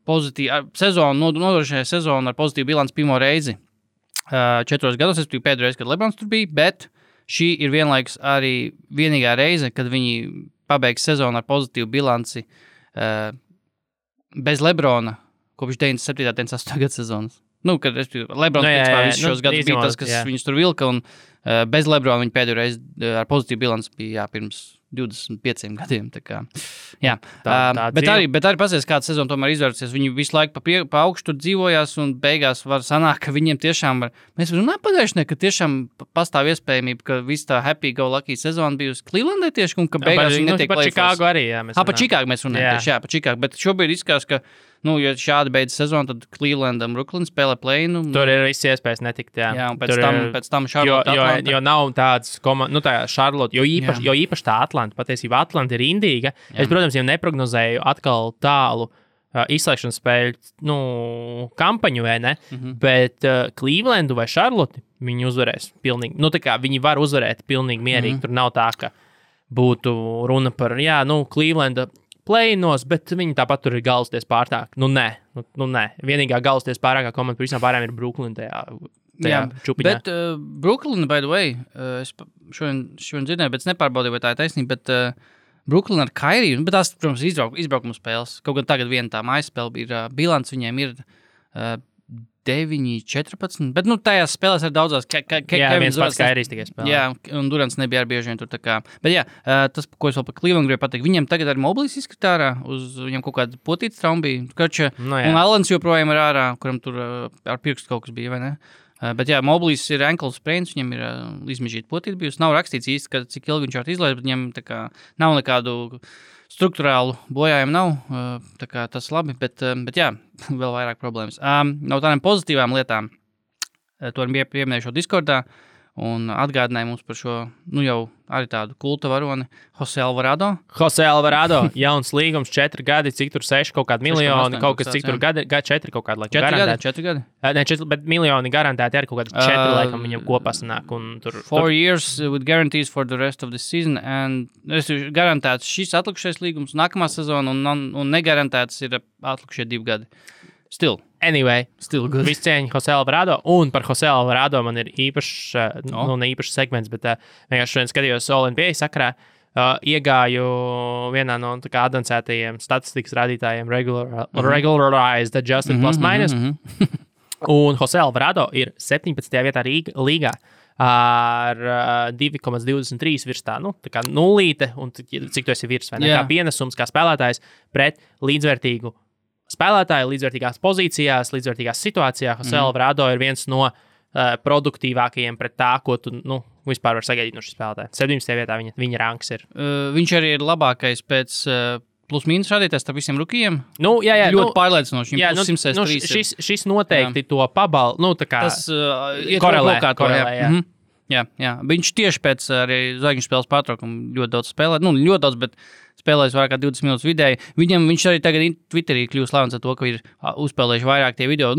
Speaker 4: nodrošināja sezonu ar pozitīvu bilanci pirmo reizi 4 gados, es biju pēdējo reizi, kad Lebrons tur bija, bet šī ir vienlaikus arī vienīgā reize, kad viņi pabeigs sezonu ar pozitīvu bilanci bez Lebrona kopš 97. 98. gada sezonas. Kad Lebrons visus šos gadus bija tas, kas viņus tur vilka, un bez Lebrona viņi pēdējo reizi ar pozitīvu bilanci bija pirms 25 gadiem. Jā. Bet arī pasies, kāda sezona tomēr izvērsies. Viņi visu laiku pa augšu tur dzīvojās, un beigās var sanākt, ka viņiem tiešām var. Mēs runājam pagājušajā, ka tiešām pastāv iespējamība, ka viss tā happy go lucky sezona bijusi Clevelandē tieši, un ka beigās viņi netiek
Speaker 3: par Čikāgu arī.
Speaker 4: Par Čikāgu mēs runājam tieši, par Čikāgu. Bet šobrīd izskatās, ka ja šādi beidzas sezona, tad Cleveland un Brooklyn spēlē play-inu.
Speaker 3: Tur ir viss iespējas netikt, jā.
Speaker 4: Jā, un pēc tam Charlotte Atlanta.
Speaker 3: Jo nav tāds tā Charlotte, jo īpaši tā Atlanta, patiesībā Atlanta ir indīga. Es, protams, jau neprognozēju atkal tālu izslēgšanas spēļu, kampaņu, vai ne? Bet Clevelandu vai Charlotte viņi uzvarēs pilnīgi. Tā kā viņi var uzvarēt pilnīgi mierīgi. Tur nav tā, ka būtu runa par, Clevelanda play-inos, bet viņi tāpat tur ir galvasties pārtāk. Nē. Vienīgā galvasties pārākā komanda par visām pārējām ir Brooklyn tajā čupiņā. Bet
Speaker 4: Brooklyn, by the way, es šodien dzirdēju, bet es nepārbaudīju, vai tā ir taisnība, bet Brooklyn ar Kairiju, bet tās, protams, izbraukuma spēles. Kaut gan tagad viena tā mājas spēle ir bilants, viņiem ir 9-14, bet tajās spēlēs ir daudzās.
Speaker 3: Viens pats Kairijs tikai spēlē.
Speaker 4: Jā, un Durants nebija ar bieži vien tur tā kā. Bet jā, tas, ko es vēl par Cleveland gribēju pateikt, viņiem tagad arī Moblīs izskatā ārā, viņam kaut kāda potīta trauma bija. Un Allens joprojām ir ārā, kuram tur ar pirkstu kaut kas bija, vai ne? Bet jā, Moblīs ir ankle sprains, viņam ir izmežīta potība bijusi. Nav rakstīts īsti, cik ilgi viņš var izlaist, bet viņam tā kā nav nekādu struktūrālu bojājumu nav. Tā kā tas labi, bet jā, vēl vairāk problēmas. No tādām pozitīvām lietām, to arī pieminēju šo Discordā, un atgādināja mums par šo, jau arī tādu kulta varoni, Jose Alvarado.
Speaker 3: Jose Alvarado, jauns līgums, 4 gadi, cik tur 6 kaut kādi miljoni, kaut kas cik tur gadi, 4 kaut kādi, laikam, garantēti.
Speaker 4: 4 gadi?
Speaker 3: Ne, 4, bet miljoni garantēti arī kaut kādi 4, laikam, viņam kopā sanāk. Un tur,
Speaker 4: 4 years with guarantees for the rest of the season, and garantēts šis atlikušais līgums nākamā sezona, un negarantēts ir atlikušie 2 gadi. Still.
Speaker 3: Anyway,
Speaker 4: good.
Speaker 3: Viss cieņa Jose Alvarado, un par Jose Alvarado man ir īpašs, ne īpašs segments, bet vienkārši šodien skatījos NBA sakarā, iegāju vienā no advancētajiem statistikas rādītājiem regularized adjusted plus minus, un Jose Alvarado ir 17. vietā līgā ar 2,23 virs tā kā nulīte, un cik tu esi virs, vai ne? Kā pienesums, kā spēlētājs pret līdzvērtīgu spēlētāji līdzvērtīgās pozīcijās, līdzvērtīgās situācijās. Jose Alvarado ir viens no produktīvākajiem pret tā, ko tu vispār var sagaidīt no šī spēlētāja. 17. vietā viņa ranks ir.
Speaker 4: Viņš arī ir labākais pēc plus-mīnus rādītājs starp visiem rukijiem.
Speaker 3: Jā,
Speaker 4: ļoti pārliecinoši.
Speaker 3: Šis noteikti to pabal,
Speaker 4: tas korelē. Jā. Viņš tieši pēc arī zvaigžņu spēles pārtraukuma ļoti daudz spēlē. Ļoti daudz, bet spēlējis vairāk kā 20 minūtes vidēji. Viņš arī tagad Twitterī kļūst slavens ar to, ka ir uzspēlējuši vairāk tie video.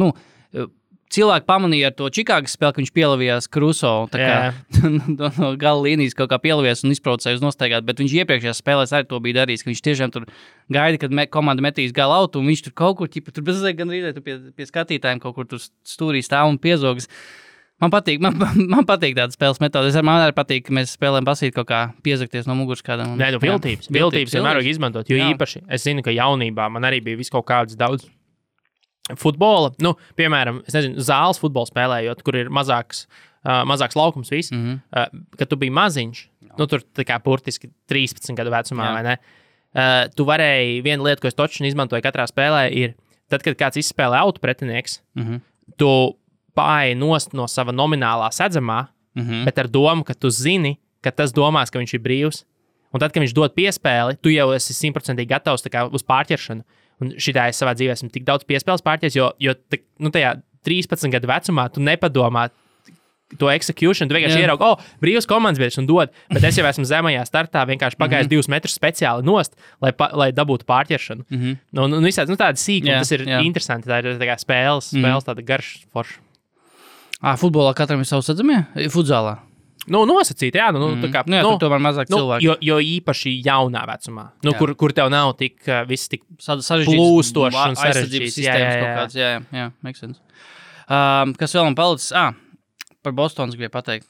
Speaker 4: Cilvēki pamanīja ar to Čikāgas spēli, ka viņš pielavījās Kruso. No gala līnijas kaut kā pielavījās un izprovocēja uz nostaigāt, bet viņš iepriekšējās spēlēs arī to bija darījis, ka viņš tiešām tur gaida, kad komanda metīs gala autu, un viņš tur kaut kur, tur bezliek gan rīdē, pie skatītājiem kaut kur tur stūrī stāv un piezogas. Man patīk tāda spēles metode. Man arī patīk, ka mēs spēlējam basīt kaut kā piezakties no muguras kādam.
Speaker 3: Nē, viltības vienmēr vajag izmantot, jo īpaši es zinu, ka jaunībā man arī bija visu kaut kāds daudz futbola. Piemēram, es nezinu, zāles futbolu spēlējot, kur ir mazāks laukums viss, kad tu biji maziņš, tur tā kā burtiski 13 gadu vecumā, vai ne? Tu varēji, viena lieta, ko es točni izmantoju katrā spēlē, ir tad, kad kāds izspēlē autu pretinieks, tu pāri nost no sava nominālā sedzamā, bet ar domu, ka tu zini, ka tas domās, ka viņš ir brīvs. Un tad, kad viņš dod piespēli, tu jau esi 100% gatavs uz pārķeršanu. Un šitā es savā dzīvē esmu tik daudz piespēles pārķers, jo tajā 13 gadu vecumā tu nepadomā to execution, tu vienkārši ieraugi, brīvs komandas biedrs un dod, bet es jau esmu zemajā startā, vienkārši pagājis 2 metrus speciāli nost, lai dabūtu pārķeršanu. Visādi, tāda sīkuma, tas ir interesanti, tā ir tā kā spēles tāda garš forša.
Speaker 4: Futbolā katram ir savs sadzamie? Futzālā?
Speaker 3: Nosacīt, jā.
Speaker 4: Tomēr mazāk cilvēki.
Speaker 3: Jo īpaši jaunā vecumā, kur tev nav viss tik
Speaker 4: sarežģīts
Speaker 3: plūstošs un sarežģīts.
Speaker 4: Jā, makes sense. Kas vēl man palicis? Par Bostonas gribēju pateikt.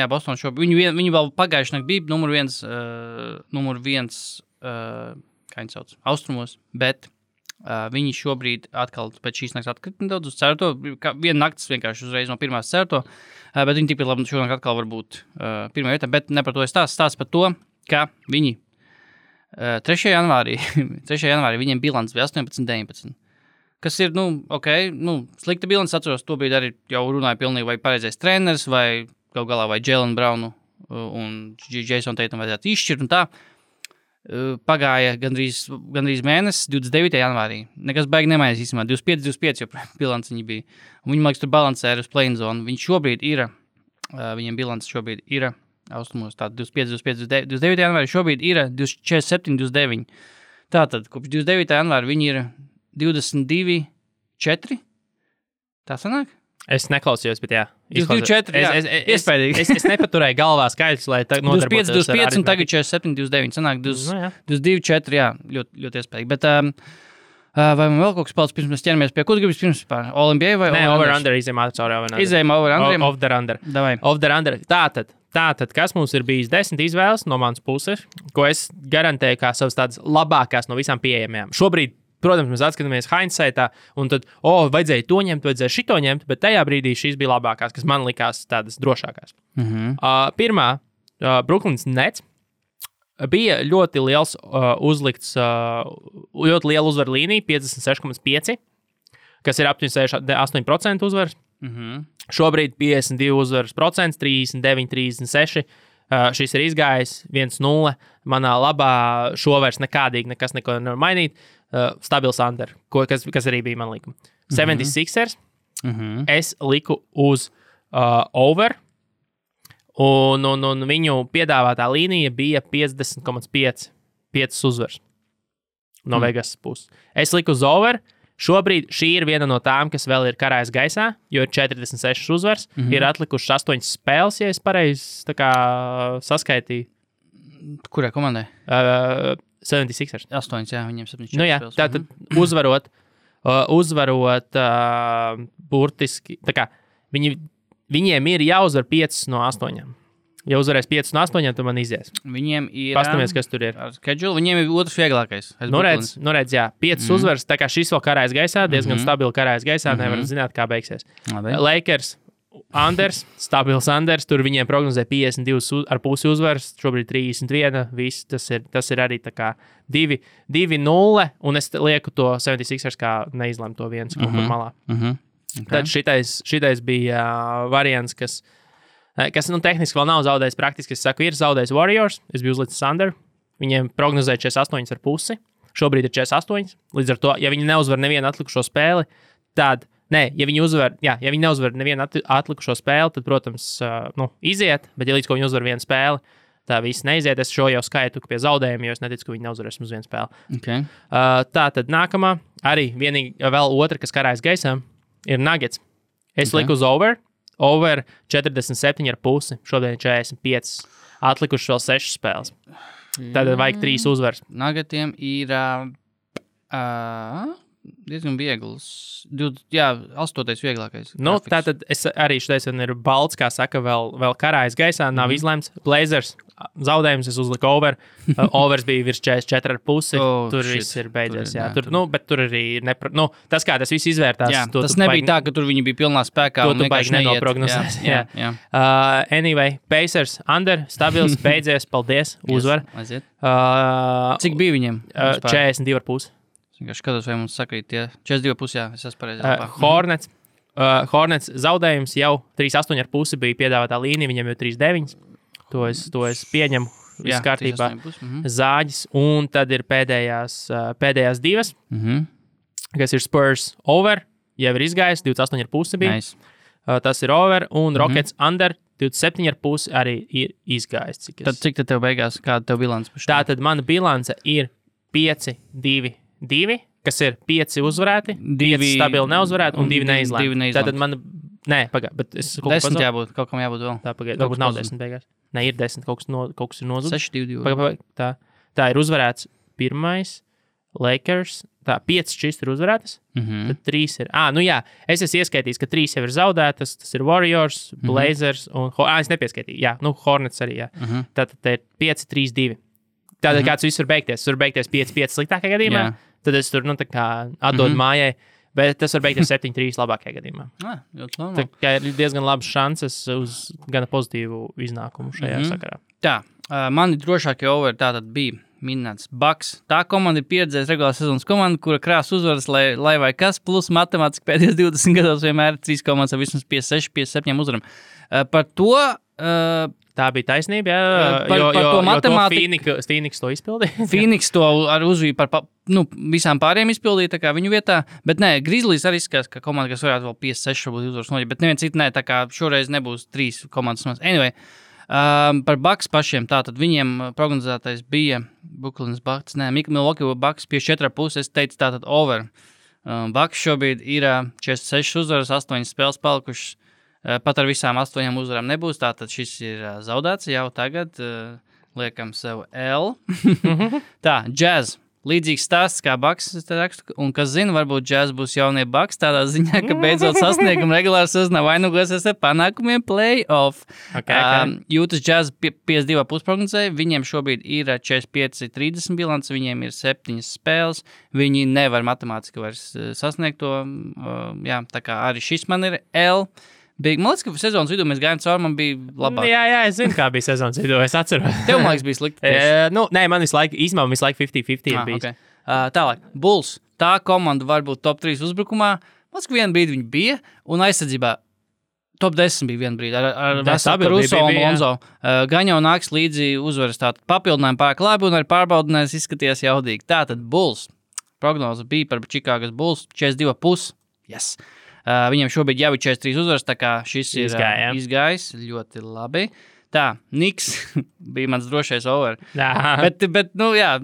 Speaker 4: Boston šobrīd. Viņi vēl pagājuši nakti bija numur viens, kā viņi sauc, austrumos, bet viņi šobrīd atkal pēc šīs nakts atkrita nedaudz uz certo. Viena nakts vienkārši uzreiz no pirmās certo, bet viņi tikpat labi šonakt atkal var būt pirmā vietā, bet ne par to es stāstu par to, ka viņi 3. janvārī viņiem bilants bija 18-19. Kas ir, slikta bilants, atceros, to bija arī jau runāja pilnīgi vai pareizais treneris, vai gal galā vai Jalen Brownu un Jason Tatum vajadzētu izšķirt un tā. Pagāja gandrīz mēnesis, 29. janvārī. Nekas baigi nemainās īstenībā, 25, jo bilants viņi bija. Un viņi, man liekas, tur balansē uz play-in zonu. Viņi šobrīd ir, viņiem bilants šobrīd ir, austrumos, tātad 29. janvārī šobrīd ir 47, 29. Tātad, kopš 29. janvāra viņi ir 22-4. Tā sanāk?
Speaker 3: Es neklausījos, bet jā.
Speaker 4: 24, iespējīgi.
Speaker 3: Es nepaturēju galvā skaidrs, lai nodarbotos
Speaker 4: 25 un tagad 47, 29. Sanāk 22-4, jā, ļoti, ļoti iespējīgi. Bet vai man vēl kaut kas palicis pirms mēs ķeramies pie, ko tu gribas pirms pār? All-NBA vai
Speaker 3: Nē, over-under, izējām ātri cauri over-under.
Speaker 4: Izējām over-under?
Speaker 3: Off-the-under.
Speaker 4: Davai.
Speaker 3: Off-the-under. Tātad, kas mums ir bijis 10 izvēles no manas puses, ko es garantēju kā savas tādas labākās no visām pieejamajām. Šobrīd, protams, mēs atskatāmies hindsightā, un tad, vajadzēja to ņemt, vajadzēja šito ņemt, bet tajā brīdī šīs bija labākās, kas man likās tādas drošākās. Pirmā, Brooklyns Nets, bija ļoti liels uzlikts, ļoti liela uzvaru līnija, 56,5, kas ir aptuveni 8% uzvaras. Šobrīd 52 uzvaras procents, 39, 36. Šis ir izgājis 1-0. Manā labā šo vairs nekādīgi neko nevar mainīt. Stabils under, kas arī bija man likuma. 76ers. Es liku uz over. Un viņu piedāvātā līnija bija 50,5 uzvaras no Vegas puses. Es liku uz over. Šobrīd šī ir viena no tām, kas vēl ir karājas gaisā, jo ir 46 uzvaras. Ir atlikušas 8 spēles, ja es pareizi saskaitīju.
Speaker 4: Kurai komandai?
Speaker 3: 76ers.
Speaker 4: 8, jā, viņiem 74
Speaker 3: nu, jā,
Speaker 4: spēles.
Speaker 3: Tātad uzvarot burtiski, tā kā viņiem ir jāuzvar 5 no 8. Ja uzvarēs 5 no 8, tad man izies.
Speaker 4: Viņiem ir...
Speaker 3: Pastamies, kas tur ir.
Speaker 4: Schedule, viņiem ir otrs vieglākais.
Speaker 3: Redz, jā. 5 uzvaras, tā kā šis vēl karājas gaisā, diezgan stabili karājas gaisā, nevar zināt, kā beigsies. Lakers, Anders, stabils Anders, tur viņiem prognozē 52,5 uzvaras, šobrīd 31, viss, tas ir arī tā kā 2-0, un es lieku to 76ers kā neizlēmu to viens kaut kur malā.
Speaker 4: Okay.
Speaker 3: Tad šitais bija variants, kas tehniski vēl nav zaudējis. Praktiski, es saku, ir zaudējis Warriors. Es biju uzlicis Under. Viņiem prognozēja 48,5. Šobrīd ir 48. Līdz ar to, ja viņi neuzvar nevienu atlikušo spēli, tad, ja viņi neuzvar nevienu atlikušo spēli, tad, protams, iziet, bet ja līdz ko viņi uzvar vienu spēli, tā viss neiziet. Es šo jau skaitu pie zaudējumiem, jo es neticu, ka viņi neuzvarēs uz vienu spēli.
Speaker 4: Okay.
Speaker 3: Tā tad nākamā, arī vienīgi vēl otra, kas karājas gaisā, ir Nuggets. Es liku uz over 47,5, šodien ir 45. Atlikuši vēl 6 spēles. Tad vajag 3 uzvaras.
Speaker 4: Nuggetiem ir diezgan viegls. 8. vieglākais.
Speaker 3: Tātad arī šodien ir balts, kā saka, vēl karājas gaisā, nav izlemts. Blazers zaudējums, es uzliku over. Overs bija virs 44,5. Tur viss ir beidzies. Bet tur arī tas, kā tas viss izvērtās.
Speaker 4: Jā, tas nebija tā, ka tur viņi bija pilnā spēkā.
Speaker 3: To tu baigi nenoprognozēs.
Speaker 4: Jā.
Speaker 3: Anyway, Pacers, Under, stabils, beidzies, paldies, uzvar.
Speaker 4: Cik bija viņiem?
Speaker 3: 42,5.
Speaker 4: Es skatos, vai mums sakrīt tie 42,5, jā, es esmu pareizi.
Speaker 3: Hornets zaudējums jau 3,8,5 bija piedāvātā līnija, viņam jau 3,9. To es pieņemu, viss kārtībā. Zāģis, un tad ir pēdējās divas, kas ir Spurs over, jau ir izgājis, 28,5 bija.
Speaker 4: Nice.
Speaker 3: Tas ir over, un Rockets under, 27,5 arī ir izgājis.
Speaker 4: Tad cik tev beigās, kāda tev bilance?
Speaker 3: Tātad mana bilance ir 5-2, kas ir 5 uzvarēti, 5 stabili neuzvarēti un 2 neizlēmti. Tātad man, bet es kaut
Speaker 4: 10 jābūt, kaut kam jābūt vēl.
Speaker 3: Tā pagaid, varbūt nav 10 beigās. Ne, ir 10, kaut kas ir nozudis.
Speaker 4: 6-2.
Speaker 3: Tā ir uzvarēts pirmais, Lakers, 5 šis ir uzvarētas, tad 3 ir. Es esmu ieskaitījis, ka 3 jau ir zaudētas, tas ir Warriors, Blazers un, es nepieskaitīju, Hornets arī, Tātad te ir 5-3-2. Tātad kāds viss var beigties, 5-5 sliktākajā gadījumā, tad es tur, atdodu mājai, bet tas var beigties 7-3 labākajā gadījumā. Tā kā ir diezgan labas šanses uz gana pozitīvu iznākumu šajā sakarā.
Speaker 4: Tā, mani drošākie over tātad bija minēts Bucks. Tā komanda ir pieredzējis regulārās sezonas komanda, kura krās uzvaras, lai vai kas, plus matemātiski pēdējos 20 gados vienmēr 3 komandas ar vismaz 56-57 uzvaram. Par to...
Speaker 3: Tā bija taisnība,
Speaker 4: par to matemātiku.
Speaker 3: Phoenix to izpildīja.
Speaker 4: Phoenix to ar uzvīju par visām pārējiem izpildīja, tā kā viņu vietā. Bet nē, Grizzlies arī skās, ka komanda, kas varētu vēl 56 varbūt uzvaras noģi, bet neviens citi nē, tā kā šoreiz nebūs 3 komandas. Anyway, par Bucks pašiem, tātad viņiem prognozētais bija Brooklyns Bucks, Milwaukee Bucks pie 4,5, es teicu tātad over. Bucks šobrīd ir 46 uzvaras, 8 spēles palikušas. Pat ar visām 8 uzvarām nebūs, tātad šis ir zaudēts jau tagad. Liekam sev L. Tā, Jazz. Līdzīgs stāsts kā Bucks, es te rakstu, un kas zina, varbūt Jazz būs jaunie Bucks tādā ziņā, ka beidzot sasniegumu regulāri sezonā vainagosies ar panākumiem play-off. Jūtas Jazz 52,5 prognozēja, viņiem šobrīd ir 45-30 bilants, viņiem ir 7 spēles, viņi nevar matemātiski vairs sasniegt to, tā kā arī šis man ir L. Man liekas, ka sezonas vidū mēs gājām cauri, man bija labāk.
Speaker 3: Jā, es zinu, kā bija sezonas vidū, es atceros.
Speaker 4: Tev, man liekas, bija slikti.
Speaker 3: Nē, man visu laiku 50-50 ir bijis.
Speaker 4: Okay. Tālāk, Bulls. Tā komanda var būt top 3 uzbrukumā. Man liekas, ka vienu brīdi viņi bija, un aizsardzībā top 10 bija viena brīdi ar Caruso un Lonzo. Gan jau nāks līdzi uzvaras tātad papildinājumu pārāk labi un arī pārbaudinājums izskaties jaudīgi. Tātad Bulls. Prognoze bija par Čikāgas Bulls 42,5. Yes. Viņam šobrīd jau ir 43 uzvaras, tā kā šis ir izgājis ļoti labi. Tā, Knicks bija mans drošais over. Bet, nu jā,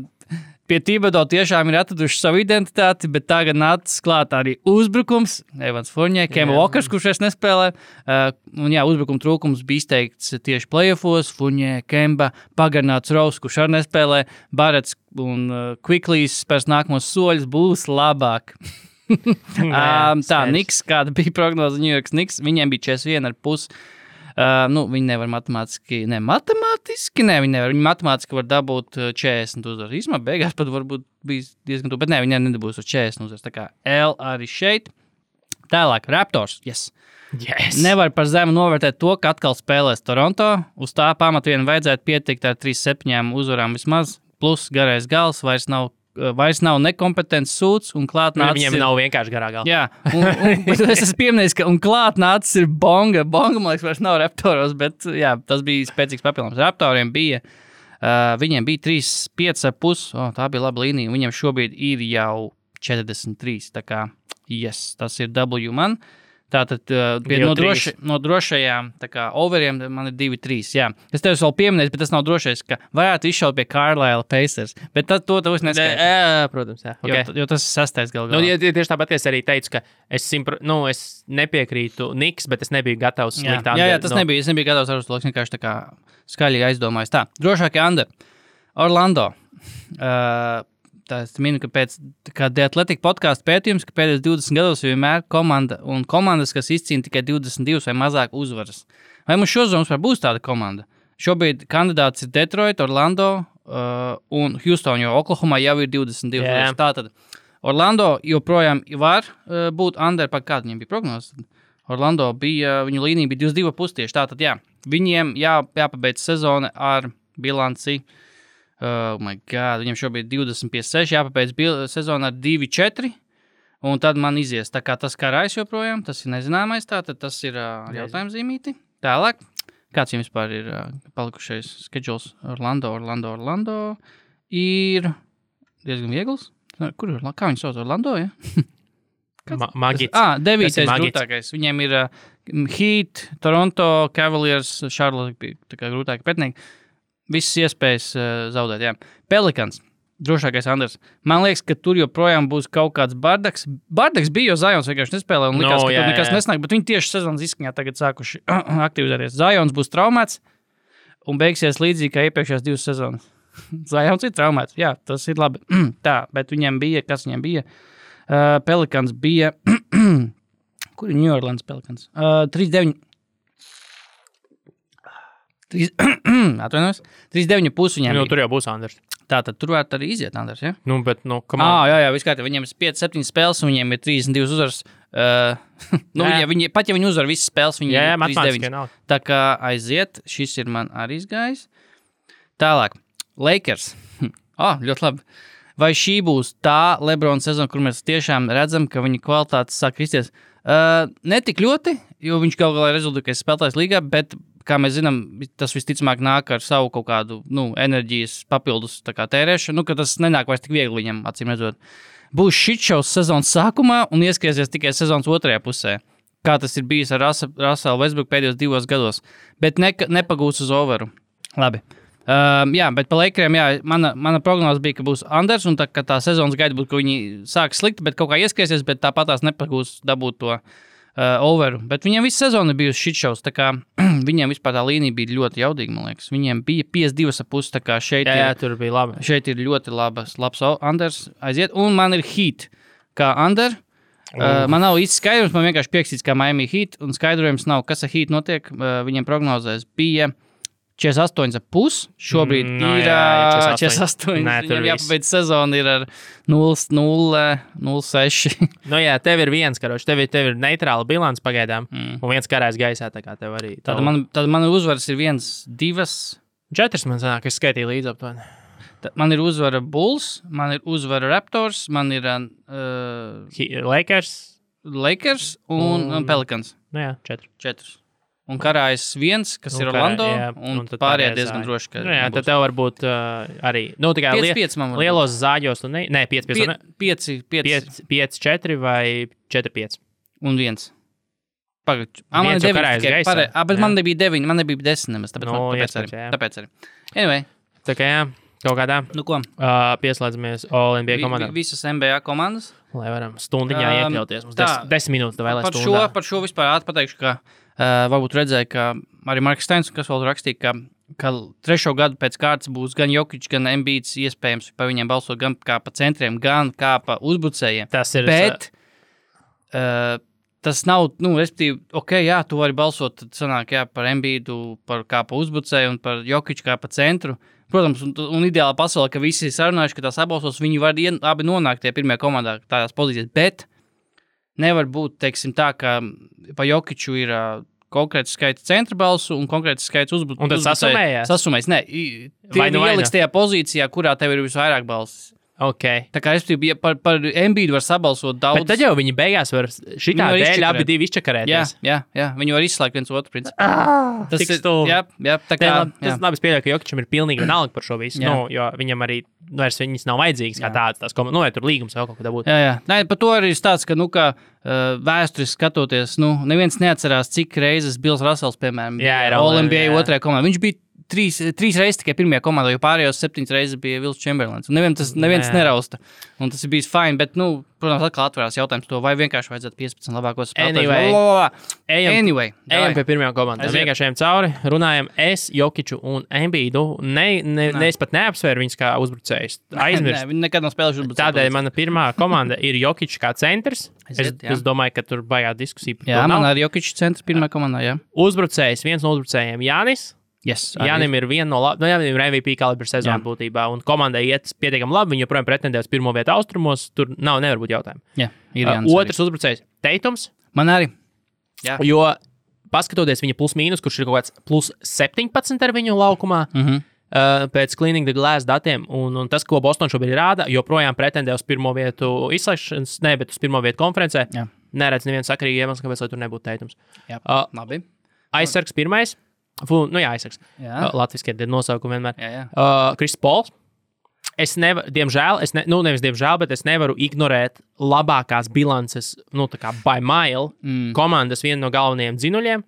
Speaker 4: pie Thibodeau tiešām ir atraduši savu identitāti, bet tagad nācis klāt arī uzbrukums. Evans Fournier, Kemba Walkers, kurš es nespēlē. Un jā, uzbrukuma trūkums bija izteikts tieši playoffos. Fournier, Kemba, pagarināts Rose, kurš arī nespēlē. Barretts un Quickleys spērs nākamos soļus būs labāk. Tā, Knicks, kāda bija prognoze New York Knicks, viņiem bija 41,5. Viņi nevar matemātiski, viņi nevar. Viņi matemātiski var dabūt 40 uzvaras. Īsumā beigās pat varbūt bija diezgan tuvu, bet viņi nedabūs uz 40 uzvaras. Tā kā L arī šeit. Tālāk, Raptors, yes. Nevar par zemu novērtēt to, ka atkal spēlēs Toronto. Uz tā pamata vien vajadzētu pietikt ar 3-7 uzvarām vismaz. Plus garais gals vairs nav nekompetents sūds un klāt nācis.
Speaker 3: Viņam nav vienkārši garā galva.
Speaker 4: Jā, bet es esmu pieminējis, ka un klāt nācis ir Bonga. Bonga, man liekas, vairs nav Raptoros, bet jā, tas bija spēcīgs papildinājums. Raptoriem bija, viņiem bija 3,5,5. Tā bija laba līnija. Viņiem šobrīd ir jau 43. Tā kā, yes, tas ir W man. Tātad no drošajām overiem man ir 2-3. Jā. Es tev vēl pieminēju, bet tas nav drošais, ka varētu izšaut pie Carlisle Pacers. Bet to es neskaidroju.
Speaker 3: Protams, jā. Okay.
Speaker 4: Jo tas ir 6. galā.
Speaker 3: Tieši tāpat es arī teicu, ka es nepiekrītu Knicks, bet es nebiju gatavs slikt under.
Speaker 4: Jā, tas nebija. Es nebiju gatavs ar uz to, vienkārši tā kā skaļīgi aizdomājos. Tā, drošākie under. Orlando. Es minu, ka pēc The Athletic podcastu pētījums, ka pēdējos 20 gados vienmēr komandas, kas izcīna tikai 22 vai mazāk uzvaras. Vai mums šozonas būs tāda komanda? Šobrīd kandidāts ir Detroit, Orlando un Houston, jo Oklahomā jau ir 22 uzvaras. Tātad Orlando joprojām var būt under, kāda viņiem bija prognoze. Orlando viņu līnija bija 22,5 tieši. Tātad jā, viņiem jāpabeidz sezona ar bilanci. Oh my God, viņam šobrīd 20,6, jāpabeidz sezona ar 2,4, un tad man izies. Tā kā tas karājs joprojām, tas ir nezināmais, tātad tas ir jautājums zīmīti. Tālāk, kāds jums vispār ir palikušais schedules? Orlando ir diezgan viegls. Kur ir? Kā viņi sauc? Orlando, ja?
Speaker 3: Magits.
Speaker 4: 9. grūtākais. Viņiem ir Heat, Toronto, Cavaliers, Charlotte, tā kā grūtāki pretinieki. Visas iespējas zaudēt, jā. Pelicans, drošākais Anders. Man liekas, ka tur joprojām būs kaut kāds bardaks. Bardaks bija, jo Zions vienkārši nespēlē un likās, ka tur nekas nesnāk, bet viņi tieši sezonas izskaņā tagad sākuši aktivizēties. Zions būs traumēts un beigsies līdzīgi kā iepriekšējās 2 sezonas. Zions ir traumēts, jā, tas ir labi. Tā, bet viņiem bija, kas viņiem bija? Pelicans bija, kur ir New Orleans Pelicans? 3-9. 3,9,5 viņiem.
Speaker 3: Tur jau būs Anders.
Speaker 4: Tātad tur varētu arī iziet Anders, ja?
Speaker 3: Come on.
Speaker 4: Jā, viskārt, viņiem ir 5-7 spēles un viņiem ir 32 uzvaras. Pat ja viņi uzvar visas spēles, viņi ir 39. Tā kā aiziet, šis ir man arī izgājis. Tālāk, Lakers. Ļoti labi. Vai šī būs tā LeBron sezona, kur mēs tiešām redzam, ka viņa kvalitātes sāk kristies? Ne tik ļoti, jo viņš kaut galā rezultātais spēlētājs līgā, bet kā mēs zinām, tas visticamāk nāk ar savu kaut kādu enerģijas papildus tērēšanu, ka tas nenāk vairs tik viegli viņam, acīm redzot. Būs shitšaus sezonas sākumā un ieskaisies tikai sezonas otrajā pusē, kā tas ir bijis ar Russell Westbrook pēdējos 2 gados, bet nepagūs uz overu. Labi. Jā, bet pa Lakeriem, jā, mana prognoze bija, ka būs Anders, un tā sezonas gaida būtu, ka viņi sāk slikti, bet kaut kā ieskaisies, bet tāpat tās nepagūs dabūt to overu. Bet viņiem visu sezonu bija shitšaus, tā kā viņiem vispār tā līnija bija ļoti jaudīga, man liekas. Viņiem bija 52,5, tā kā šeit
Speaker 3: tur bija labi.
Speaker 4: Šeit ir ļoti labs Anders aiziet, un man ir Heat kā Under. Man nav īsti skaidrums, man vienkārši piekstīts kā Miami Heat, un skaidrojums nav, kas ar Heat notiek. Viņiem prognozēs bija 48,5. Šobrīd ir 48. Viņam jāpabeidz sezona ir ar 0,6.
Speaker 3: Jā, tev ir viens karoči, tev ir neitrāla bilants pagaidām, un viens karājs gaisā, tā kā tev arī.
Speaker 4: Tad man uzvaras ir 1, 2.
Speaker 3: 4 man sanāk, es skaitīju līdz aptuveni.
Speaker 4: Man ir uzvara Bulls, man ir uzvara Raptors, man ir
Speaker 3: Lakers
Speaker 4: un Pelicans.
Speaker 3: Jā, 4.
Speaker 4: un karājas 1, kas ir Orlando, un pārējie diezgan droši, ka
Speaker 3: jā, tad tev varbūt arī, tikai
Speaker 4: 5 man
Speaker 3: lielos zāģos, tu 5, 4 vai 4, 5.
Speaker 4: Un 1. Pagaid, man ir 9, bet man nebija 9, man nebija 10 nemaz, tāpēc arī. Anyway.
Speaker 3: Tā kā jā, kaut kādā.
Speaker 4: Nu ko?
Speaker 3: Pieslēdzamies All NBA komandām.
Speaker 4: Visas NBA komandas.
Speaker 3: Lai varam stundiņā iekļauties. Mums 10 minūtes vēl stundā.
Speaker 4: Par šo vispār pateikšu, ka varbūt redzēju, ka arī Marks Steins, kas vēl rakstīja, ka 3. gadu pēc kārtas būs gan Jokic, gan Embiids iespējams par viņiem balsot gan kā pa centriem, gan kā pa uzbrucējiem.
Speaker 3: Tas ir.
Speaker 4: Bet tas nav, respektīvi, jā, tu vari balsot, tad sanāk, par Embiidu, kā pa uzbrucēju un par Jokic kā pa centru. Protams, un ideāla pasaulē, ka visi sarunājuši, ka tās apbalsos, viņi var abi nonākt tie pirmajā komandā tādās pozīcijās, bet nevar būt, teiksim tā, ka pa Jokiču ir konkrēts skaits centra balsu un konkrēts skaits uzbrucēju.
Speaker 3: Un tad sasumējās?
Speaker 4: Sasumējas, nē. Tie ieliks tajā pozīcijā, kurā tev ir visvairāk balsis.
Speaker 3: Okay.
Speaker 4: Tā kā es ja par Embiidu var sabalsot daudz.
Speaker 3: Bet tad jau viņi beigās var šitā dēļ abi divi izčakarēties.
Speaker 4: Jā, viņi var izslēgt viens otru principu.
Speaker 3: Tas ir stulbi.
Speaker 4: Jā, tā kā.
Speaker 3: Tas labi spēļo, ka Jokičam ir pilnīgi vienalga par šo visu, jo viņam arī vairs viņas nav vajadzīgas kā tādas komandas, vai tur līgums vēl kaut kādā būtu.
Speaker 4: Jā. Nē, par to arī stāsts, ka, vēsturiski skatoties, neviens neatcerās, cik reizes Bills Russells, piemēram, All NBA 2. komandā. Viņš bija 3 reizes tikai pirmajā komandā, jo pārējos 7 reizes bija Wilt Chamberlains. Un neviens nerausta. Un tas ir bijis fine, bet, protams, atkal atverās jautājums to, vai vienkārši vajadzētu 15 labākos spēlētājus.
Speaker 3: Anyway. Ejam pie pirmajām komandām. Vienkārši ejam cauri, runājam es, Jokiču un Embiidu. Es pat neapsvēru viņus kā uzbrucējus. Aizmirst.
Speaker 4: Viņi nekad nav spēlējuši uzbrucējus.
Speaker 3: Tādēļ mana pirmā komanda ir Jokičs kā centrs. Es domāju, ka tur baigā diskusija par to.
Speaker 4: Jā, man arī Jokičs centrs pirmā komandā, jā.
Speaker 3: Uzbrucējs, viens no uzbrucējiem Jānis.
Speaker 4: Yes,
Speaker 3: Jānim ir viena no Jānim ir MVP kalibra sezona būtībā, un komandai iet pietiekami labi, viņi joprojām pretendē uz pirmo vietu austrumos, tur nevar būt jautājumu.
Speaker 4: Jā, ir Jānis.
Speaker 3: Otrs uzbrucējs Teitums.
Speaker 4: Man arī. Jā.
Speaker 3: Jo, paskatoties viņa plus mīnus, kurš ir kaut kāds plus 17 ar viņu laukumā, pēc Cleaning the Glass datiem, un tas, ko Boston šobrīd rāda, joprojām pretendē uz pirmo vietu izslēgšanas, bet uz pirmo vietu konferencē. Jā. Neredz nevienu sakarīgi iemeslu, kāpēc, lai tur nebūtu Teitums.
Speaker 4: Jā, labi.
Speaker 3: Aizsargs pirmais. Aizsargs. Latviski ir nosaukumi vienmēr.
Speaker 4: Jā.
Speaker 3: Kris Pols. Diemžēl, nevis diemžēl, bet es nevaru ignorēt labākās bilances, tā kā by mile, komandas vienu no galvenajiem dzinuļiem,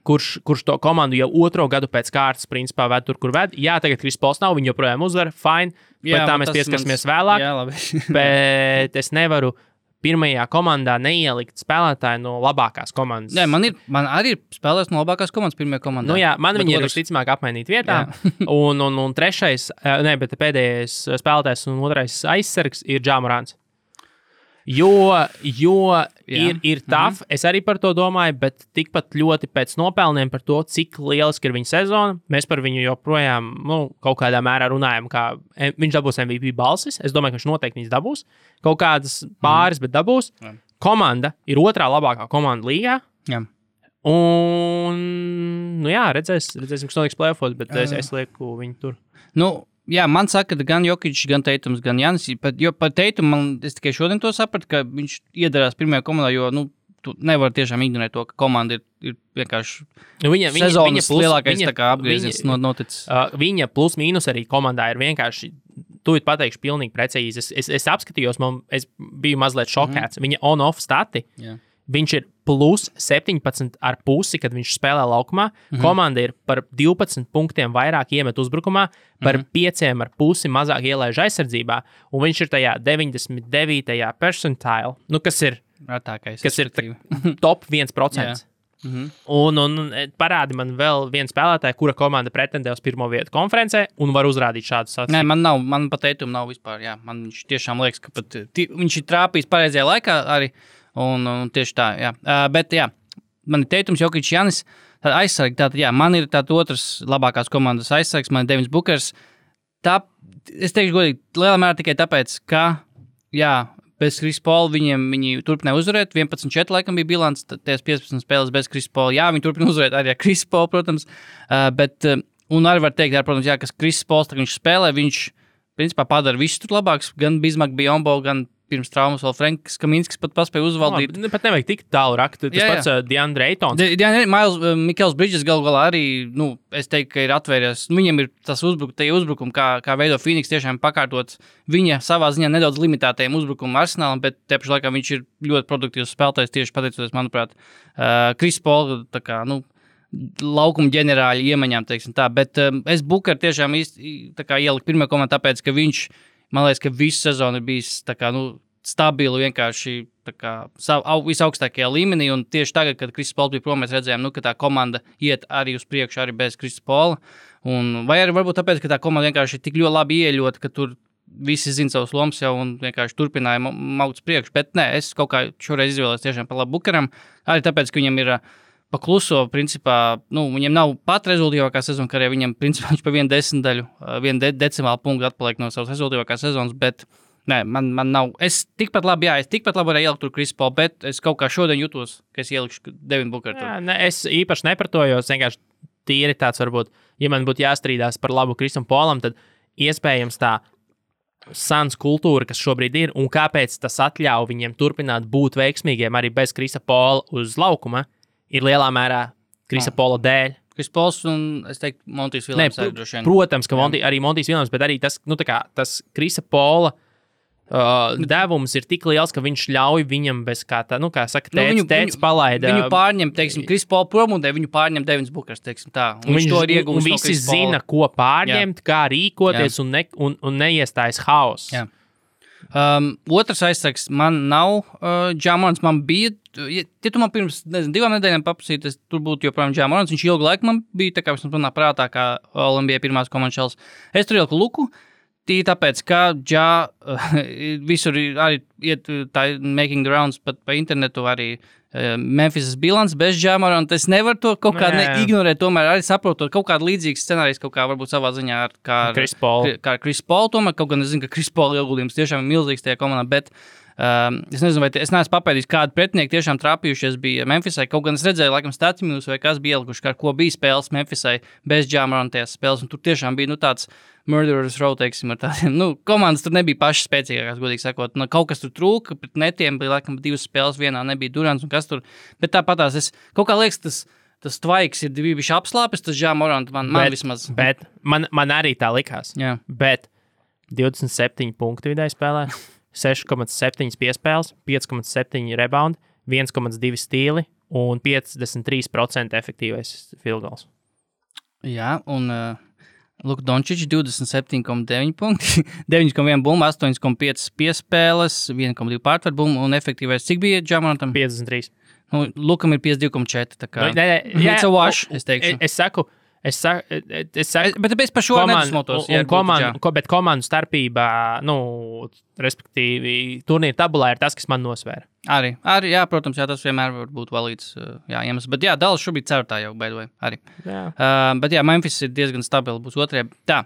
Speaker 3: kurš to komandu jau 2. gadu pēc kārtas, principā, ved tur, kur ved. Jā, tagad Kris Pols nav, viņi joprojām uzvar, fine, bet tā mēs pieskarsimies vēlāk.
Speaker 4: Jā, labi.
Speaker 3: Bet es nevaru pirmajā komandā neielikt spēlētāju no labākās komandas.
Speaker 4: Nē, man arī ir spēlēs no labākās komandas pirmajā komandā.
Speaker 3: Man viņi ir visticamāk apmainīt vietā. un trešais, bet pēdējais spēlētājs un otrais aizsargs ir Ja Morants. Jo ir tough, es arī par to domāju, bet tikpat ļoti pēc nopelniem par to, cik lieliski ir viņa sezona. Mēs par viņu joprojām kaut kādā mērā runājam, kā viņš dabūs MVP balsis. Es domāju, ka viņš noteikti viņas dabūs. Kaut kādas pāris, bet dabūs. Komanda ir 2. labākā komanda līgā.
Speaker 4: Jā.
Speaker 3: Un, redzēsim, kas notiks playoffos, bet es lieku viņu tur.
Speaker 4: Jā, man saka, ka gan Jokičs, gan Teitums, gan Jānis. Jo par Teitumu es tikai šodien to sapratu, ka viņš iedarās pirmajā komandā, jo tu nevari tiešām ignorēt to, ka komanda ir vienkārši sezonas lielākais apgrieziens noticis.
Speaker 3: Viņa plus mīnus arī komandā ir vienkārši, tu pateikšu pilnīgi precīzi. Es apskatījos, es biju mazliet šokēts. Viņa on-off stati. Jā. Viņš ir plus 17,5, kad viņš spēlē laukumā. Komanda ir par 12 punktiem vairāk iemet uzbrukumā, par 5,5 mazāk ielaiž aizsardzībā, un viņš ir tajā 99. percentile, kas ir top 1%. Un parādi man vēl vienu spēlētāju, kura komanda pretendē uz pirmo vietu konferencē un var uzrādīt šādu sacību.
Speaker 4: Nē, man pat Teitumu nav vispār. Jā. Man viņš tiešām liekas, ka pat viņš ir trāpījis pareizajā laikā arī. Un tieši tā, jā. Bet, jā, man ir Teitums, Jokičs, Jānis, tāda aizsargi, man ir tāda otrs labākās komandas aizsargs, man ir Devins Bukers. Es teikšu godīgi, lielā mērā tikai tāpēc, ka, bez Kris Pola viņi turpināja uzvarēt, 11-4 laikam bija bilants, tās 15 spēles bez Kris Pola, viņi turpina uzvarēt arī ar Kris Polu, protams, bet, un arī var teikt, protams, kas Kris Pols, viņš spēlē, viņš, principā, padara visu tur labāks, gan Bismarck, Biyombo, gan pirms traumas vēl Franks Kaminskis pat paspēja uzvaldīt.
Speaker 3: Pat nevajag tik tālu rakt. Tas pats DeAndre Aytons.
Speaker 4: Michaels Bridges galu galā arī, es teiktu, ka ir atvērties. Viņam ir tas uzbrukumi, kā veido Phoenix tiešām pakārtot viņa savā ziņā nedaudz limitētajiem uzbrukumu arsenālam, bet te pašā laikā viņš ir ļoti produktīvs spēlētājs tieši pateicoties, manuprāt, Chris Paul, tā kā, laukuma ģenerāļa iemaņām, teiksim tā. Bet es Booker tiešām ieliku pirmajā komandā, tāpēc, ka viņš, man liekas, ka visu sezonu ir bijis tā kā, stabili vienkārši visaugstākajā līmenī, un tieši tagad, kad Chris Paul bija prom, mēs redzējām, ka tā komanda iet arī uz priekšu, arī bez Chris Paula, vai arī varbūt tāpēc, ka tā komanda vienkārši ir tik ļoti labi ieļota, ka tur visi zina savus lomas jau un vienkārši turpināja maut uz priekšu, bet nē, es kaut kā šoreiz izvēlējos tiešām par labu Bookeram, arī tāpēc, ka viņam ir pakluso, principā, viņam nav pat rezultīvākā sezona, kā arī viņam, principā, viņš pa vienu decimālu punktu atpaliek no savas rezultīvākās sezonas, bet, nē, man nav, es tikpat labi varēju ielikt tur Chris Paul, bet es kaut kā šodien jutos, ka es ielikšu Devin Booker tur.
Speaker 3: Jā, es īpaši nepratojos, vienkārši tīri tāds varbūt, ja man būtu jāstrīdās par labu Chrisam Paulam, tad iespējams tā Suns kultūra, kas šobrīd ir, un kāpēc tas atļauj viņiem turpināt būt veiksmīgiem arī bez Chrisa Paula uz laukuma, ir lielā mērā Chrisa Paula dēļ.
Speaker 4: Chris Pauls un, es teiktu, Montijs Viljams arī droši vien.
Speaker 3: Protams, ka arī Montijs Viljams, bet arī tas, tas Chrisa Paula devums ir tik liels, ka viņš ļauj viņam bez kā tā, kā saka, tēts palaida.
Speaker 4: Viņu pārņem, teiksim, Chris Paul prom un viņu pārņem Devins Bookers, teiksim tā. Un viņš to ir iegūst
Speaker 3: un visi zina, ko pārņemt, kā rīkoties un neiestājas haoss.
Speaker 4: Jā. Otrs aizsargs man nav Ja Morants, man bija, ja tu man pirms 2 nedēļām paprasīt, tur būtu joprojām Ja Morants, viņš ilgu laiku man bija, tā kā viņš manā prātā, kā All-NBA pirmās komandas šals. Es tur ieliku Luku, tāpēc, ka visur arī iet tā making the rounds pat pa internetu arī Memphis bilants bez Ja Moranta. Es nevaru to kaut kā ignorēt, tomēr arī saprotot kaut kādu līdzīgu scenāriju, kaut kā varbūt savā ziņā kā
Speaker 3: Chris Paul,
Speaker 4: tomēr kaut gan es zinu, ka Chris Paul ieguldījums tiešām ir milzīgs tajā komandā, bet es nezinu, vai es neesmu papēdījis, kādu pretinieku tiešām trāpījušies bija Memphisai, kaut gan es redzēju, laikam, Statimius vai kas bija ielikuši, kā ko bija spēles Memphisai bez Ja Morantas spēles, un tur tiešām bija, tāds Murderers Row, teiksim, ar tādiem, komandas tur nebija pašas spēcīgākās, godīgi sakot, kaut kas tur trūka, pret netiem bija, laikam, 2 spēles, vienā nebija Durants un kas tur, bet tāpatās es, kaut kā liekas, tas tvaiks ir bijuši apslāpes, tas Ja Morant man vismaz.
Speaker 3: Bet man arī tā likās, bet 27 punktu vidēji spēlē, 6,7 piespēles, 5,7 rebound, 1,2 stīli un 53% efektīvais field goals.
Speaker 4: Jā, un Luka Dončičs 27,9 punkti, 9,1 bumba, 8,5 piespēles, 1,2 pārtver bumbu un efektīvais. Cik bija Ja Morantam?
Speaker 3: 53.
Speaker 4: Lukam ir 52,4. Tā kā
Speaker 3: it's
Speaker 4: a wash, es teikšu.
Speaker 3: Es saku,
Speaker 4: bet tāpēc par šo nedusmotos.
Speaker 3: Bet komandu starpībā, respektīvi, turnīra tabulā ir tas, kas man nosvēra.
Speaker 4: Arī, jā, protams, tas vienmēr var būt valīts iemesls. Bet jā, Dallas šobrīd ceturtā jau, by the way, arī. Bet jā, Memphis ir diezgan stabili, būs otrajā. Tā,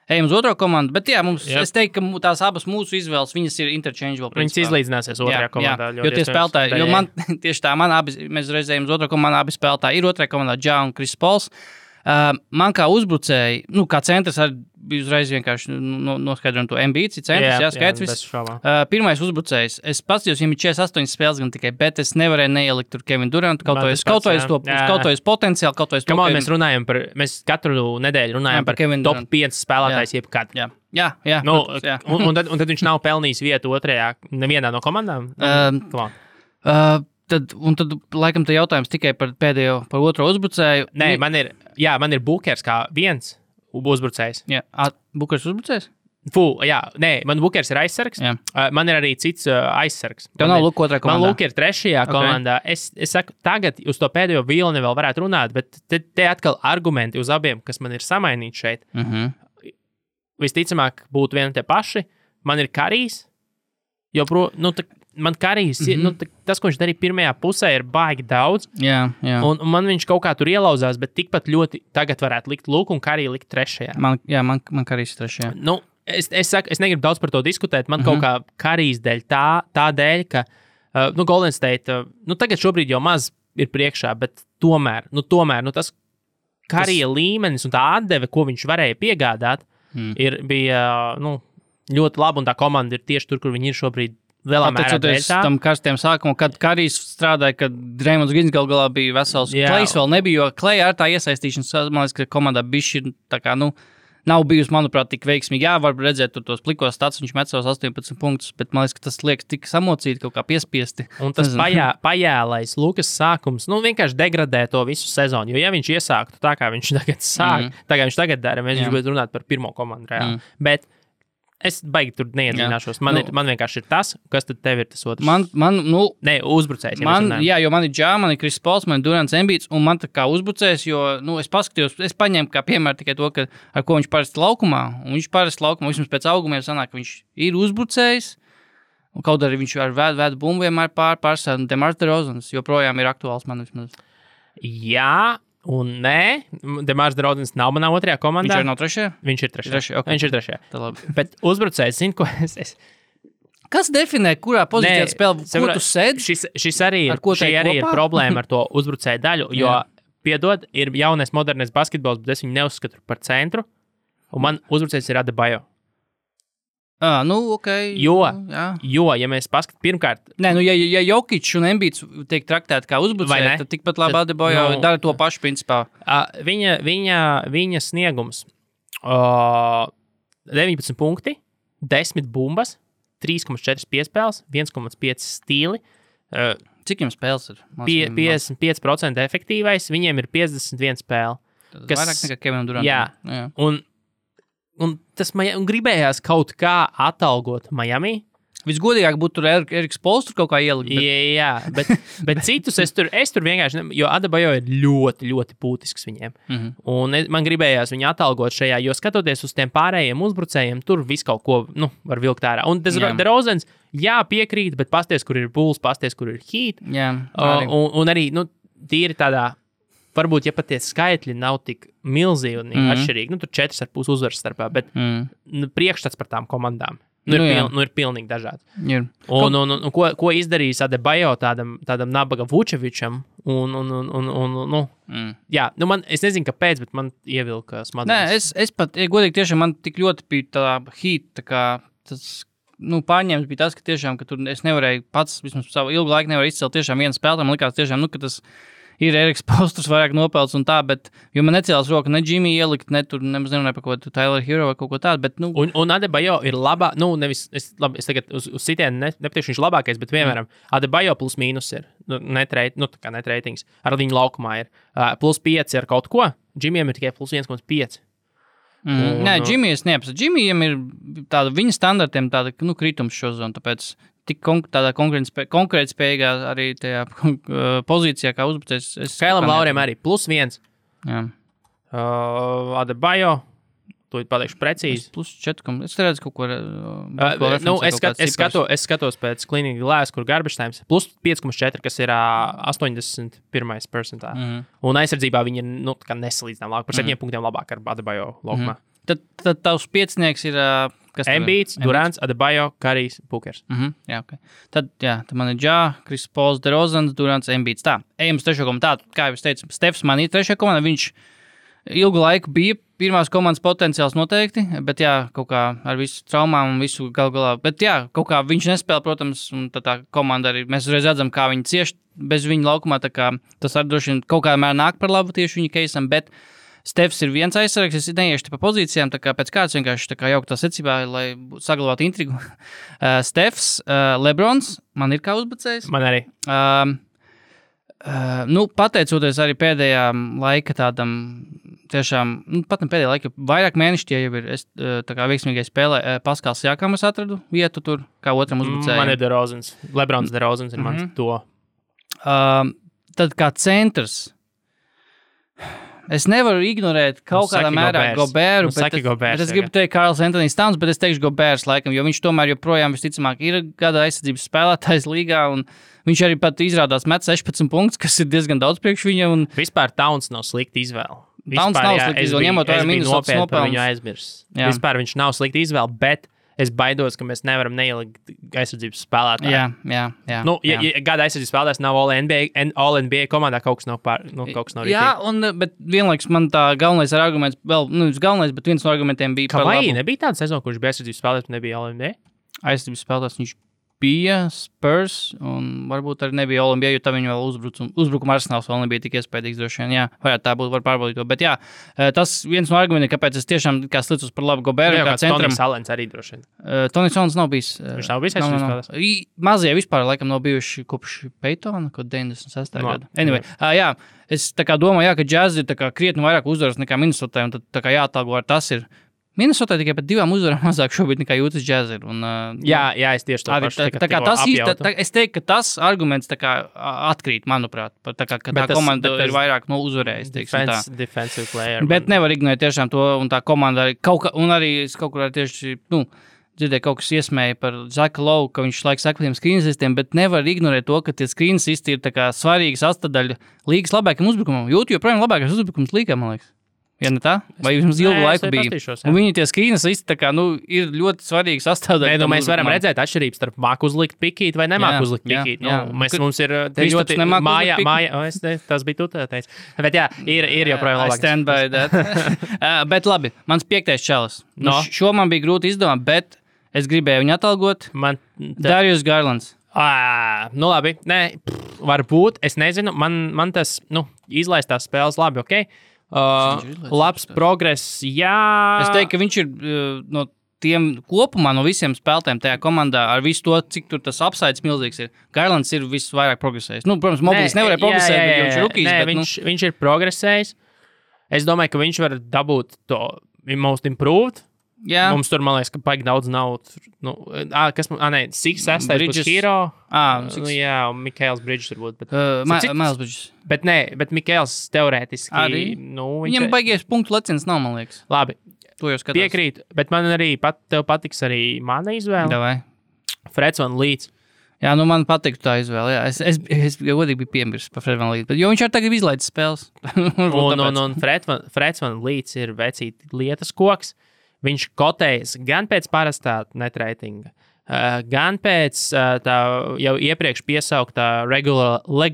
Speaker 4: ejam uz otro komandu, bet jā, es teiktu, ka tās abas mūsu izvēles, viņas ir interchangeable.
Speaker 3: Viņas izlīdzināsies otrajā komandā.
Speaker 4: Jo tie spēlētāji, jo man tieši tā, mēs reizējam uz otro komandu, abi spēlētāji ir otrajā komandā Ja un Chris Pauls. Man kā uzbrucēji, kā centrs arī bija uzreiz vienkārši noskaidrojam to Embiid, centrs, skaidrs viss. Pirmais uzbrucējs, es paskatījos, viņam ir 48 spēles gan tikai, bet es nevarēju neielikt tur Kevin Durantu, kaut vai uz potenciāli, kaut vai uz to.
Speaker 3: Mēs katru nedēļu runājam par top 5 spēlētājs jebkad.
Speaker 4: Jā.
Speaker 3: Un tad viņš nav pelnījis vietu otrajā, nevienā no komandām?
Speaker 4: Tad, laikam, te jautājums tikai par otro uzbrucēju.
Speaker 3: Nē, man ir Bookers kā viens uzbrucējs.
Speaker 4: Jā, Bookers uzbrucējs?
Speaker 3: Man Bookers ir aizsargs. Man ir arī cits aizsargs.
Speaker 4: Tev nav Luka otrā komandā?
Speaker 3: Man Luka ir trešajā komandā. Es saku, tagad uz to pēdējo vilni vēl varētu runāt, bet te atkal argumenti uz abiem, kas man ir samainīti šeit. Visticamāk būtu vieni tie paši. Man ir Karijs, man Karijs, tas, ko viņš darīja pirmajā pusē, ir baigi daudz.
Speaker 4: Jā.
Speaker 3: Un man viņš kaut kā tur ielauzās, bet tikpat ļoti tagad varētu likt Luku un Kariju likt trešajā.
Speaker 4: Man Karijs ir trešajā.
Speaker 3: Es saku, es negribu daudz par to diskutēt. Man kaut kā Karijs dēļ tā dēļ, ka Golden State, tagad šobrīd jau maz ir priekšā, bet tomēr tas Karija līmenis un tā atdeve, ko viņš varēja piegādāt, bija ļoti laba, un tā komanda ir tieši tur, kur viņi ir šobrīd lielā mērā dēļ tā.
Speaker 4: Tam karstiem sākumam, kad Karijs strādāja, kad Draymonds Greens gal galā bija vesels. Klejs vēl nebija, jo Kleja ar tā iesaistīšanas, man liekas, ka komandā bišķi tā kā, nav bijusi, manuprāt, tik veiksmīgi. Jā, var redzēt tur tos plikos stats, viņš met savus 18 punktus, bet man liekas, ka tas liekas tik samocīti, kaut kā piespiesti.
Speaker 3: Un tas pajēlais Lukas sākums, vienkārši degradē to visu sezonu, jo ja viņš iesāktu tā, kā viņš tagad sāk, tā kā viņš tagad dara, mēs gribētu runāt par pirmo komandu reāli. Bet es baigi tur neiedzināšos. Man vienkārši ir tas, kas tad tev ir tas otrs. Ne, uzbrucējs.
Speaker 4: Jo man ir Džā, man ir Kris Pols, man ir Durants Embiids, un man tā kā uzbrucējs, jo, es paskatījos, es paņēmu kā piemēru tikai to, ka, ar ko viņš parasti laukumā, un viņš parasti laukumā, vismaz pēc augumiem sanāk, ka viņš ir uzbrucējs, un kaut arī viņš ar vēdu bumbu vienmēr pārstāv, un Demars DeRozans joprojām ir aktuāls man vismaz.
Speaker 3: Jā, un nē, Demars DeRozans nav manā otrajā komandā.
Speaker 4: Viņš ir nav trešajā?
Speaker 3: Viņš ir trešajā.
Speaker 4: Okay.
Speaker 3: Viņš ir trešajā. Bet uzbrucējs, zini, ko es...
Speaker 4: Kas definē, kurā pozīcijā spēlē, ko tu sēdi?
Speaker 3: Šis arī ir problēma ar to uzbrucēju daļu, jo, piedod, ir jaunais modernais basketbols, bet es viņu neuzskatu par centru, un man uzbrucējs ir Adebayo.
Speaker 4: Ok.
Speaker 3: Jo, ja mēs paskatām, pirmkārt...
Speaker 4: Nē, ja Jokic un Embiids tiek traktēti kā uzbrucēji, tad tikpat labi Adebayo dara to pašu principā.
Speaker 3: Viņa sniegums 19 punkti, 10 bumbas, 3,4 piespēles, 1,5 stīli.
Speaker 4: Cik jums spēles ir?
Speaker 3: 55% efektīvais, viņiem ir 51 spēle.
Speaker 4: Tas vairāk nekā Kevinam Durantam.
Speaker 3: Jā. Un tas gribējās kaut kā atalgot Miami.
Speaker 4: Visgodīgāk būtu tur Eriks Pols tur kaut kā ielikt.
Speaker 3: Jā, bet citus es tur vienkārši, jo Adebayo ir ļoti, ļoti būtisks viņiem. Un man gribējās viņu atalgot šajā, jo skatoties uz tiem pārējiem uzbrucējiem, tur viss kaut ko, var vilkt ārā. Un DeRozans, piekrīt, bet pasties, kur ir Bulls, pasties, kur ir Heat.
Speaker 4: Jā.
Speaker 3: Un arī, tīri tādā, varbūt, ja pat tie skaitļi nav tik milzīgi un atšķirīgi, tur 4,5 uzvaras starpā, bet priekšstats par tām komandām. Ir pilnīgi dažāds. Un ko izdarījis Adebayo tādam nabaga Vučevičam? Es nezinu, kāpēc, bet man ievilka smadzenes.
Speaker 4: Nē, es pat, godīgi tiešām man tik ļoti bija tā Heat, tā kā tas, pārņēmis bija tas, ka tiešām, ka tur es nevarēju pats, vismaz savu ilgu laiku nevaru izcelt tiešām vienu spēlētāju, man likās tiešām, ka tas ir Eriks Posters vairāk nopelts un tā, bet, jo man necēlās roka ne Jimmy ielikt, ne tur, nemaz nerunāju par kaut ko Tyler Hero vai kaut ko tādu, bet,
Speaker 3: Un Adebayo ir labā, es tagad uz sitienu nepateikšu, viņš labākais, bet, piemēram, Adebayo plus mīnus ir, net ratings, ar viņu laukumā ir, plus 5 ar kaut ko, Jimmyam ir tikai plus 1,5.
Speaker 4: Nē, Jimmy es neapsatu. Jimmyam ir tāda viņa standartiem tāda, kritums šo zonu, tāpēc tik tādā konkurētspējīgā arī tajā pozīcijā, kā uzbrucējs.
Speaker 3: Kailam Lauriem arī plus 1.
Speaker 4: Jā.
Speaker 3: Adebayo, to pateikšu precīzi.
Speaker 4: Plus 4, es redzu kaut ko...
Speaker 3: Es skatos pēc Cleaning Glass, kur garbage times, plus 5,4, kas ir 81. percentā. Un aizsardzībā viņi ir nesalīdzinām labāk, par 7 punktiem labāk ar Adebayo laukumā.
Speaker 4: Tad tavs piecinieks ir...
Speaker 3: Embiids, Durants, Adebayo, Karijs, Bookers.
Speaker 4: Jā, ok. Tad man ir Džā, Kris Pols, DeRozans, Durants, Embiids. Tā, ejam uz trešo komandu. Kā jau es teicu, Stefs man ir trešajā komandā, viņš ilgu laiku bija pirmās komandas potenciāls noteikti, bet kaut kā ar visu traumām un visu galā. Bet kaut kā viņš nespēlē, protams, un tā komanda arī, mēs uzreiz redzam, kā viņi cieši bez viņa laukumā, tā kā tas arī droši vien kaut kādā mērā nāk par labu tieši viņa keisam, bet Stefs ir viens aizsargs, es neiešu pa pozīcijām, tā kā pēc kāds vienkārši tā kā jauktā secībā, lai saglabātu intrigu. Stefs, Lebrons, man ir kā uzbrucējs.
Speaker 3: Man arī.
Speaker 4: Pateicoties arī pēdējā laika tādam, tiešām, pat ne pēdējā laika, vairāk mēneši tie jau ir, es tā kā veiksmīgai spēlē, Paskals Jākam es atradu vietu tur, kā otram uzbrucējiem.
Speaker 3: Man ir DeRozans, Lebrons DeRozans ir mans to.
Speaker 4: Tad kā centrs, es nevaru ignorēt kaut kādā mērā Goberu, bet es gribu teikt Karls Anthony Towns, bet es teikšu Gobers laikam, jo viņš tomēr joprojām visticamāk ir gada aizsardzības spēlētājs līgā, un viņš arī pat izrādās met 16 punktus, kas ir diezgan daudz priekš viņa. Un...
Speaker 3: Vispār Towns nav slikta izvēle.
Speaker 4: Towns nav slikta izvēle, ņemot vērā minus
Speaker 3: nopelnus. Viņu aizmirs. Vispār viņš nav slikta izvēle, bet es baidos, ka mēs nevaram neielikt aizsardzības spēlētāju.
Speaker 4: Jā.
Speaker 3: Gada aizsardzības spēlētājs nav All-NBA komandā, kaut kas nav rītīgi.
Speaker 4: Jā, bet vienlaiks man tā galvenais arguments, bet viens no argumentiem bija
Speaker 3: par labu. Nebija tāda sezona, kurš bija aizsardzības spēlētājs, nebija All-NBA?
Speaker 4: Aizsardzības spēlētājs viņš bija Spurs, un varbūt arī nebija Olimpija, jo tā viņa vēl uzbrukuma arsenāls vēl nebija tik iespējīgs droši vien, jā. Varētu tā būt, var pārbaudīt to. Bet jā, tas viens no argumentiem, kāpēc es tiešām kā slicos par labu Goberu, kā centram.
Speaker 3: Tonis Alens arī droši vien.
Speaker 4: Tonis Alens nav bijis.
Speaker 3: Viņš nav bijis aizspriezt.
Speaker 4: Mazie vispār laikam nav bijuši kopš Peytona, kaut 96. gada. Anyway, jā, es tā kā domāju, jā, ka Jazz ir tā kā krietni vairāk uzvaras nekā Minnesotā, un tad tā kā jāatalgo ar tas ir. Minnesotā tikai pat 2 uzvarām mazāk šobrīd nekā jūtas Jazz ir. Un,
Speaker 3: jā, es tieši to pašu
Speaker 4: es teiktu, ka tas arguments tā kā atkrīt, manuprāt, tā kā tā komanda ir vairāk uzvarējis.
Speaker 3: Defensive player.
Speaker 4: Bet nevar ignorēt tiešām to, un tā komanda arī un arī es kaut kur tieši, dzirdēju kaut kas iesmēja par Zaka Lowe, ka viņš laiks saka tiem screenasistiem, bet nevar ignorēt to, ka tie screenasisti ir tā kā svarīga sastadaļa līgas labākam uzbrukumam. Jūtu joprojām labākais uzbrukums līgā, man liekas. Ja ne tā? Vai jums ilgu laiku bija? Un viņi tie screenasisti tā kā, ir ļoti svarīgi sastāvdaļa.
Speaker 3: Mēs varam redzēt atšķirības starp māku uzlikt pikīt vai nemāku uzlikt pikīt. Mums ir ļoti māja, tas bija tu teici. Bet jā, ir joprojām labāk.
Speaker 4: I stand by that. Bet labi, mans 5. čalis. Šo man bija grūti izdomāt, bet es gribēju viņu atalgot. Darius Garlands.
Speaker 3: Labi, varbūt, es nezinu, man tas, izlaistās spēles labi, ok? Labs progress, jā.
Speaker 4: Es teiktu, ka viņš ir no tiem kopumā, no visiem spēlētājiem tajā komandā, ar visu to, cik tur tas upsides milzīgs ir. Garlands ir visvairāk progresējis. Protams, Moblīs nevarēja progresēt, bet viņš ir rookies.
Speaker 3: Viņš ir progresējis. Es domāju, ka viņš var dabūt to most improved.
Speaker 4: Jā.
Speaker 3: Mums tur, man liekas, ka paigi daudz nav. Six Bridges Hero. Jā, un Mikaels Bridges varbūt.
Speaker 4: Miles Bridges.
Speaker 3: Bet Mikaels teorētiski.
Speaker 4: Arī? Viņam baigies punktu leciens nav, man liekas.
Speaker 3: Labi.
Speaker 4: To jau skatās.
Speaker 3: Piekrīt, bet man arī tev patiks arī mana izvēle.
Speaker 4: Davai.
Speaker 3: Freds Van Leeds.
Speaker 4: Jā, man patīk tā izvēle. Jā. Es godīgi biju piemirsis par Fred Van Leeds, jo viņš arī tagad izlaidis spēles.
Speaker 3: un Freds Van Leeds ir vecīt lietas koks. Viņš kotējas gan pēc parastā netreitinga, gan pēc tā jau iepriekš piesauktā regularize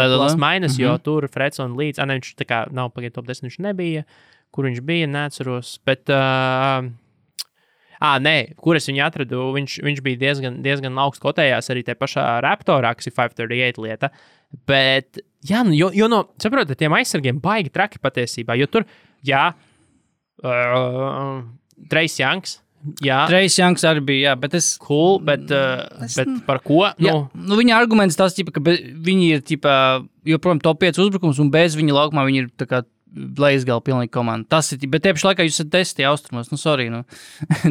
Speaker 3: plus minus, jo tur Freds un Leeds, viņš tā kā nav pagaidu top 10, viņš nebija, kur viņš bija, neatceros, bet, kur es viņu atradu, viņš bija diezgan augsts kotējās arī tie pašā Raptorā, kas ir 538 lieta, bet, jā, jo no, saprotat, tiem aizsargiem baigi traki patiesībā, jo tur, jā, Trace Youngs. Jā.
Speaker 4: Trace Youngs arī bija, jā, bet es...
Speaker 3: Cool, bet par ko?
Speaker 4: Jā, viņa arguments tas, ka viņi ir, joprojām top 5 uzbrukums, un bez viņa laukumā viņi ir tā kā Leizgala pilnīgi komanda. Tas ir, bet tieši laikā jūs esat 10 austrumos, sorry,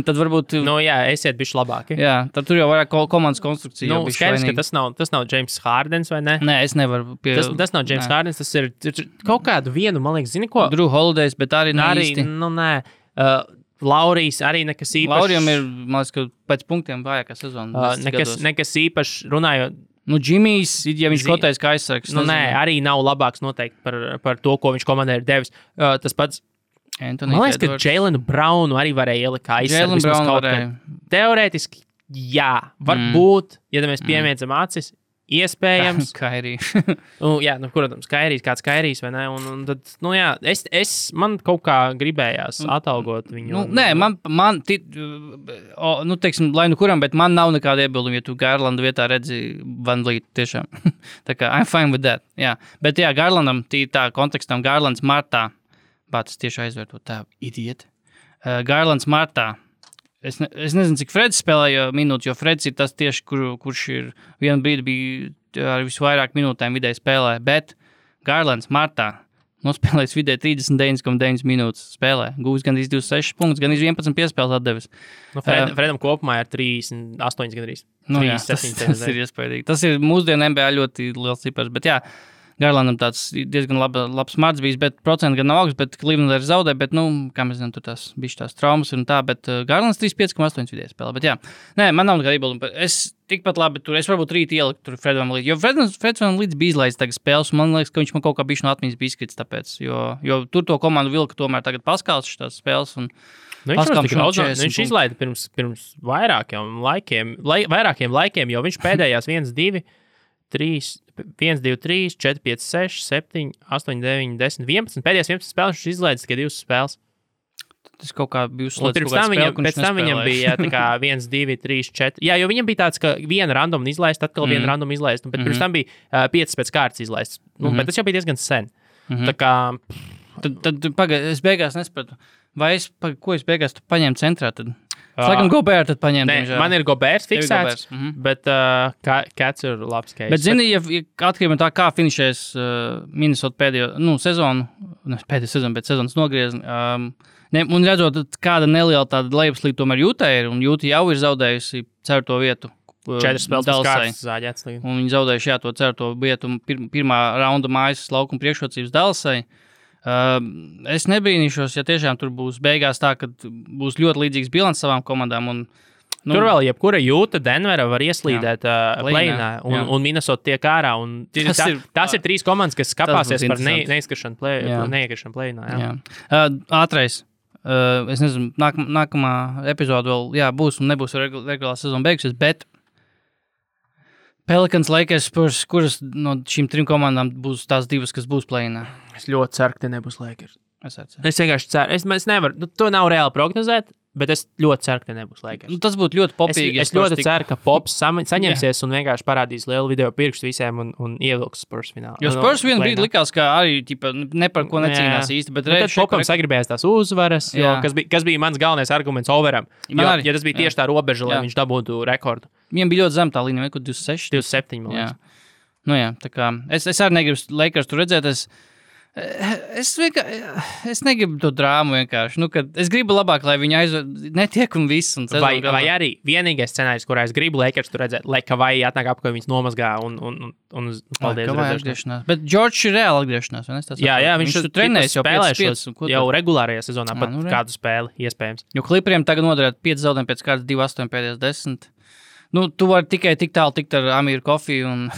Speaker 4: Tad varbūt...
Speaker 3: jā, esiet bišķi labāki.
Speaker 4: Jā, tad tur jau vairāk komandas konstrukcija.
Speaker 3: Skaidrs, ka tas nav James Hardens, vai ne?
Speaker 4: Nē, es nevaru
Speaker 3: Tas nav James Hardens, tas ir kaut kādu vienu, man liekas, zini ko?
Speaker 4: Drew Holidays, bet arī īsti.
Speaker 3: Nē. Laurijs arī nekas īpašs.
Speaker 4: Laurijam ir, man liekas, ka pēc punktiem vājākā sezona.
Speaker 3: Nekas īpašs runājot.
Speaker 4: Džimijs, ja viņš kotējas kā aizsargs.
Speaker 3: Arī nav labāks noteikti par to, ko viņš komandē ir devis. Tas pats,
Speaker 4: Anthony
Speaker 3: man liekas, ka Jaylenu Brownu arī varēja ielikt kā aizsargs. Teorētiski, jā, varbūt, ja mēs piemiedzam acis, iespējams.
Speaker 4: Kairijs.
Speaker 3: Protams, kāds Kairijs, vai ne? Un tad, jā, man kaut kā gribējās atalgot viņu.
Speaker 4: Teiksim, lai kuram, bet man nav nekāda iebilduma, ja tu Garlanda vietā redzi Van Vliet, tiešām. Tā kā, I'm fine with that, jā. Bet jā, Garlandam, tā kontekstam, Garlands martā, bācis tieši aizvērtot tā idieti. Garlands martā. Es nezinu, cik Freds spēlēja minūtes, jo Freds ir tas tieši, kurš ir vienu brīdi bija ar visvairāk minūtēm vidēji spēlē, bet Garlands martā nospēlējis vidēji 39,9 minūtes spēlē. Gūs gan 26 punktus, gan 11 piespēles atdevis.
Speaker 3: Fredam kopumā ir 38 gandrīz.
Speaker 4: Tas ir iespējīgi. Tas ir mūsdienu NBA ļoti liels cipars, bet jā, Garlandam tāds diezgan labs marts bijis, bet procenti gan nav augsts, bet Cleveland arī zaudē, bet, kā mēs zinām, tur tās bišķi tās traumas un tā, bet Garlands 35,8 vidēji spēlē, bet jā. Nē, man nav nekāda iebilduma. Es tikpat labi tur, es varbūt rīt ieliku tur Fred Van Vliet, jo Fred Van Vliet bija izlaidis tagad spēles, un man liekas, ka viņš man kaut kā bišķi no atmiņas bija izkrits tāpēc, jo tur to komandu vilka tomēr tagad Paskals šitās spēles, un
Speaker 3: viņš izlaida pirms vairākiem laikiem, jo viņš pēdējās 1, 2, 3, 1, 2, 3, 4, 5, 6, 7, 8, 9, 10, 11. Pēdējās 11 spēles viņš izlaidis tikai 2 spēles.
Speaker 4: Tas kaut kā bija
Speaker 3: uzslēdz. Pēc tam viņam bija tā kā 1, 2, 3, 4. Jā, jo viņam bija tāds, ka viena random izlaist, atkal viena random izlaist, bet pirms tam bija 5 pēc kārtas izlaists. Bet tas jau bija diezgan sen. Tā kā...
Speaker 4: Tad pagaid, es beigās nesapratu. Vai ko es beigās paņēmu centrā tad? Es laikam Gobert tad paņēmu.
Speaker 3: Nē, man ir Goberts fiksēts, bet Cats ir labs case.
Speaker 4: Bet zini, ja atkarībā no tā, kā finišēs Minnesota pēdējo sezonu, bet sezonas nogriezni, un redzot, kāda neliela tāda lejupslīde tomēr Jūtai ir, un Jūta jau ir zaudējusi 4. vietu.
Speaker 3: 4 spēles pēc kārtas zāģēts.
Speaker 4: Un viņi zaudējuši to 4. vietu pirmā raunda mājas laukuma priekšrocības Dallasai. Es nebrīnīšos, ja tiešām tur būs beigās tā, ka būs ļoti līdzīgs bilants savām komandām.
Speaker 3: Tur vēl jebkura Jūta, Denvera var ieslīdēt play-inā, un Minnesota tiek ārā. Tas ir 3 komandas, kas skapāsies par neizkrišanu play-inā.
Speaker 4: Ātrais. Es nezinu, nākamā epizode vēl būs un nebūs regulārā sezona beigusies, bet Pelicans, Lakers, Spurs, kuras no šīm 3 komandām būs tās 2, kas būs play-inā?
Speaker 3: Es ļoti ceru, ka te nebūs Lakers.
Speaker 4: Es
Speaker 3: vienkārši ceru. Es nevaru, to nav reāli prognozēt, bet es ļoti ceru, ka te nebūs Lakers.
Speaker 4: Tas būtu ļoti popīgi.
Speaker 3: Es ļoti ceru, ka Pops saņemsies un vienkārši parādīs lielu video pirkstu visiem un ievilks Spurs finālā.
Speaker 4: Jo Spurs vienu brīdi likās, ka arī ne par ko necīnās īsti, bet
Speaker 3: Popam sagribējās tās uzvaras, kas bija mans galvenais arguments overam. Ja tas bija tieši tā robeža, lai viņš dabūtu rekordu.
Speaker 4: Viņam bija ļoti zem tā līnija, kaut 26.
Speaker 3: 27, man liekas.
Speaker 4: Tā kā es arī negribu Lakers tur redzēt, es negribu to drāmu vienkārši. Es gribu labāk, lai viņi netiek un viss.
Speaker 3: Vai arī vienīgais scenārijs, kurā es gribu Lakers tur redzēt, lai Kavai atnāk apkārt viņas nomazgā un paldies
Speaker 4: redzēšanās. Bet Džordžs ir reāli atgriešanās, vai ne?
Speaker 3: Jā, viņš
Speaker 4: tur trenēs jau
Speaker 3: spēlēšos jau regulārajā sezonā, pat kādu spēli iespējams.
Speaker 4: Jo Clipperiem tagad noderēt 5 zaudējumi pēc kārtas 2-8 pēdējās 10. Tu vari tikai tik tālu tikt ar Amiru Kofiju un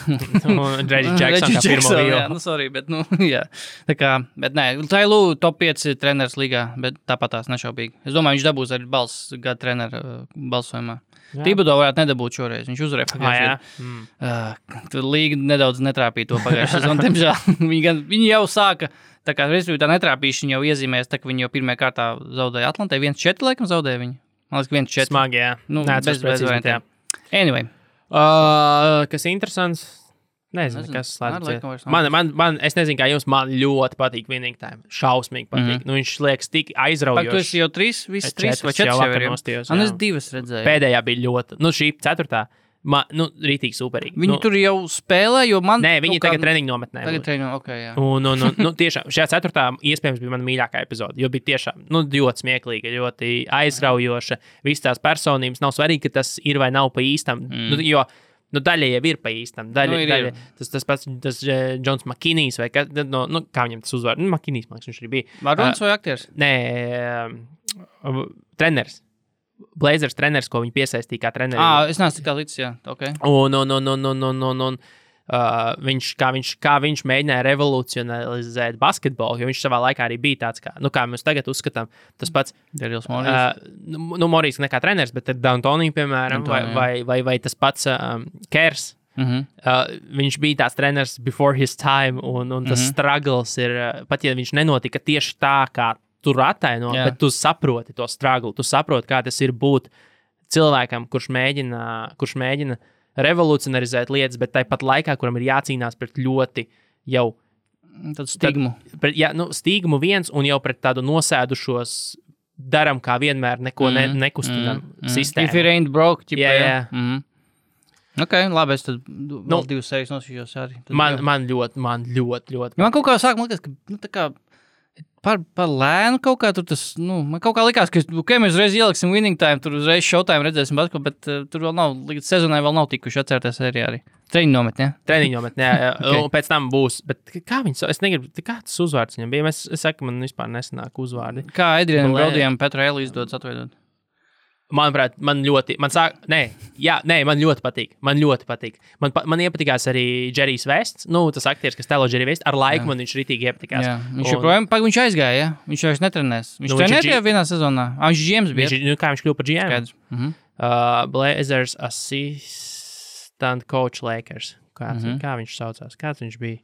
Speaker 3: Reggie Jackson kā pirmo vīlu.
Speaker 4: Sorry, bet jā. Tā kā, bet nē, Tailu top 5 treneris līgā, bet tāpat tās nešaubīgi. Es domāju, viņš dabūs arī balss gada trenera balsojumā. Thibodeau varētu nedabūt šoreiz, viņš uzvarēja pagājušajā. Līga nedaudz netrāpīja to pagājušajā sezonu, diemžēl. Viņi jau sāka, tā kā respektīvi tā netrāpīšana jau iezīmēs, tā ka viņi jau pirmajā kārtā zaudēja Atlantē, 1-4 laikam zaudēja viņi. Man liekas, 1-4.
Speaker 3: Smagi, jā.
Speaker 4: Bez variantiem. Anyway.
Speaker 3: Kas interesants? Nezinu, kas slēdz. Es nezinu, kā jums, man ļoti patīk Winning Time. Šausmīgi patīk. Viņš liekas tik aizraujoši.
Speaker 4: Tu esi jau 3, visi 3 vai 4 jau ir. Es 2 redzēju.
Speaker 3: Pēdējā bija ļoti, šī 4. Rītīgi superīgi.
Speaker 4: Viņi tur jau spēlē, jo man...
Speaker 3: Nē, viņi tagad treniņu nometnē.
Speaker 4: Jā.
Speaker 3: Un tiešām, šajā 4. iespējams bija mana mīļākā epizode, jo bija tiešām, ļoti smieklīga, ļoti aizraujoša. Visas tās personības nav svarīgi, ka tas ir vai nav pa īstam, jo daļa jau ir pa īstam. Daļa, tas pats Džons Makinijs vai kā viņam tas uzvar? Makinijs, man liekas, viņš arī bija.
Speaker 4: Varuns vai aktieris?
Speaker 3: Nē, treneris. Blazers treneris, ko viņi piesaistīja kā treneri.
Speaker 4: Es neesmu tik tā līdz, jā, ok.
Speaker 3: Un kā viņš mēģināja revolucionalizēt basketbolu, jo viņš savā laikā arī bija tāds, kā mēs tagad uzskatām, tas pats
Speaker 4: Darils Morijas.
Speaker 3: Morijas ne kā treneris, bet D'Antoni, piemēram, vai tas pats Kers. Viņš bija tāds treneris before his time, un tas struggles ir, pat ja viņš nenotika tieši tā, kā tur attaino, bet tu saproti to struggle, tu saproti, kā tas ir būt cilvēkam, kurš mēģina revolucionarizēt lietas, bet tāpat laikā, kuram ir jācīnās pret ļoti jau
Speaker 4: stigmu.
Speaker 3: Stigmu viens un jau pret tādu nosēdušos daram kā vienmēr neko nekustinam sistēmu.
Speaker 4: If it ain't broke, jā. Ok, labi, es tad vēl 2 sērijas nosīšos arī.
Speaker 3: Man ļoti.
Speaker 4: Man kaut kā sāk, man liekas, ka tā kā par lēnu kaut kā tur tas, man kaut kā likās, ka mēs uzreiz ieliksim Winning Time, tur uzreiz Showtime redzēsim basketbolu, bet tur vēl nav, līdz sezonai vēl nav tikuši atcerēties sērijā arī. Treniņu nometnē.
Speaker 3: Jā. Okay. Un pēc tam būs, bet kā viņas, es negribu, kā tas uzvārds viņam bija, es saku, man vispār nesanāk uzvārdi.
Speaker 4: Kā Adrianam Brodijam Petra Eli izdodas atveidot?
Speaker 3: Manuprāt, man ļoti patīk. Man iepatikās arī Džerijs Vests, tas aktieris, kas tēlo Džeriju Vestu, ar laiku man viņš ritīgi iepatikās.
Speaker 4: Jā, viņš aizgāja, viņš vairs netrenēs. Viņš trenē tikai vienā sezonā. Viņš GMs bija.
Speaker 3: Kā viņš kļuva par GM? Blazers assistant coach Lakers. Kā viņš saucās? Kāds viņš bija?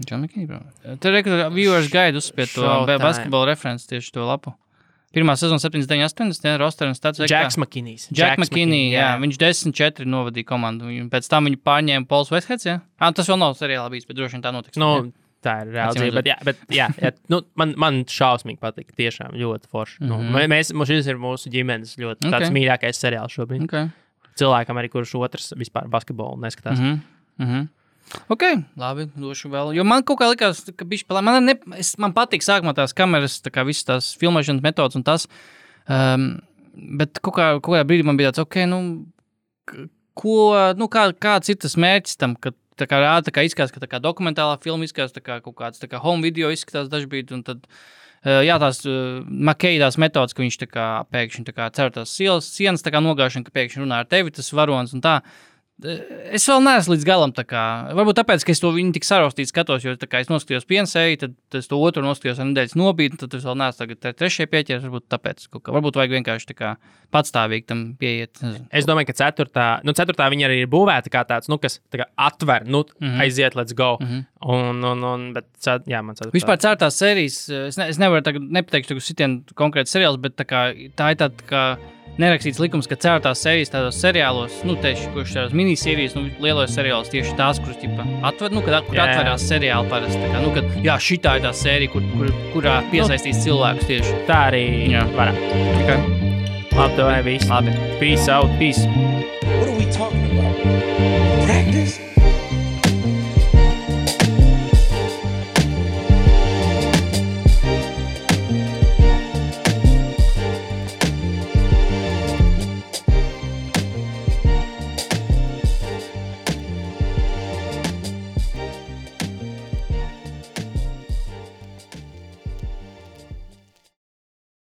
Speaker 4: John McKinney, bro. Te viewers guide uzspied to basketbola referenci tieši to lapu. Pirmā sezona 79-80, roster un stats.
Speaker 3: Jacks McKinney.
Speaker 4: Jack McKinney, jā. Viņš 10-4 novadīja komandu. Pēc tam viņu pārņēma Pauls Westheads, jā? Tas vēl nav seriālā bijis, bet droši vien tā notiks.
Speaker 3: Tā ir reāli. Bet man šausmīgi patīk. Tiešām ļoti forši. Šis ir mūsu ģimenes ļoti tāds mīļākais seriāls šobrīd. Cilvēkam arī, kurš otrs vispār basketbolu neskatās.
Speaker 4: Ok, labi, došu vēl. Jo man kaut kā likās, ka bišķi man patīk sākumā tās kameras, tā kā visas tās filmēšanas metodas un tas, bet kaut kādā brīdī man bija tāds, kāds ir tas mērķis tam, ka tā kā izskatās, ka tā kā dokumentālā filma izskatās, tā kā kaut kāds tā kā home video izskatās dažbrīd, un tad, tās Makejās metodas, ka viņš tā kā pēkšņi tā kā cer tās sienas tā kā nogāšana, ka pēkšņi runā ar tevi, tas varonis un tā. Es vēl neesmu līdz galam tā kā, varbūt tāpēc, ka es to viņu tik sarostīt skatos, jo tā kā es noskatījos piensēju, tad es to otru noskatījos ar nedēļas nobīdi, tad es vēl neesmu tagad trešajai pieķeries, varbūt tāpēc, varbūt vajag vienkārši tā kā patstāvīgi tam pieiet.
Speaker 3: Es domāju, ka ceturtā viņa arī ir būvēta kā tāds, kas tā kā atver, aiziet, let's go. Bet, man ceturtā.
Speaker 4: Vispār ceturtās sērijas, es nevaru tagad nepateikšu sitien konkrēti seriāls, bet tā ir tāda kā nerakstīts likums, ka ceturtās sērijas tādos seriālos, tieši, kurš tādās minisērijas, lielos seriālos tieši tās, kuras atver, kur atverās seriāli parasti. Kad, šitā ir tā sērija, kurā piesaistīs cilvēkus tieši.
Speaker 3: Tā arī varētu. Labi, tev viss.
Speaker 4: Labi.
Speaker 3: Peace out, peace.
Speaker 2: What are we talking about? Practice?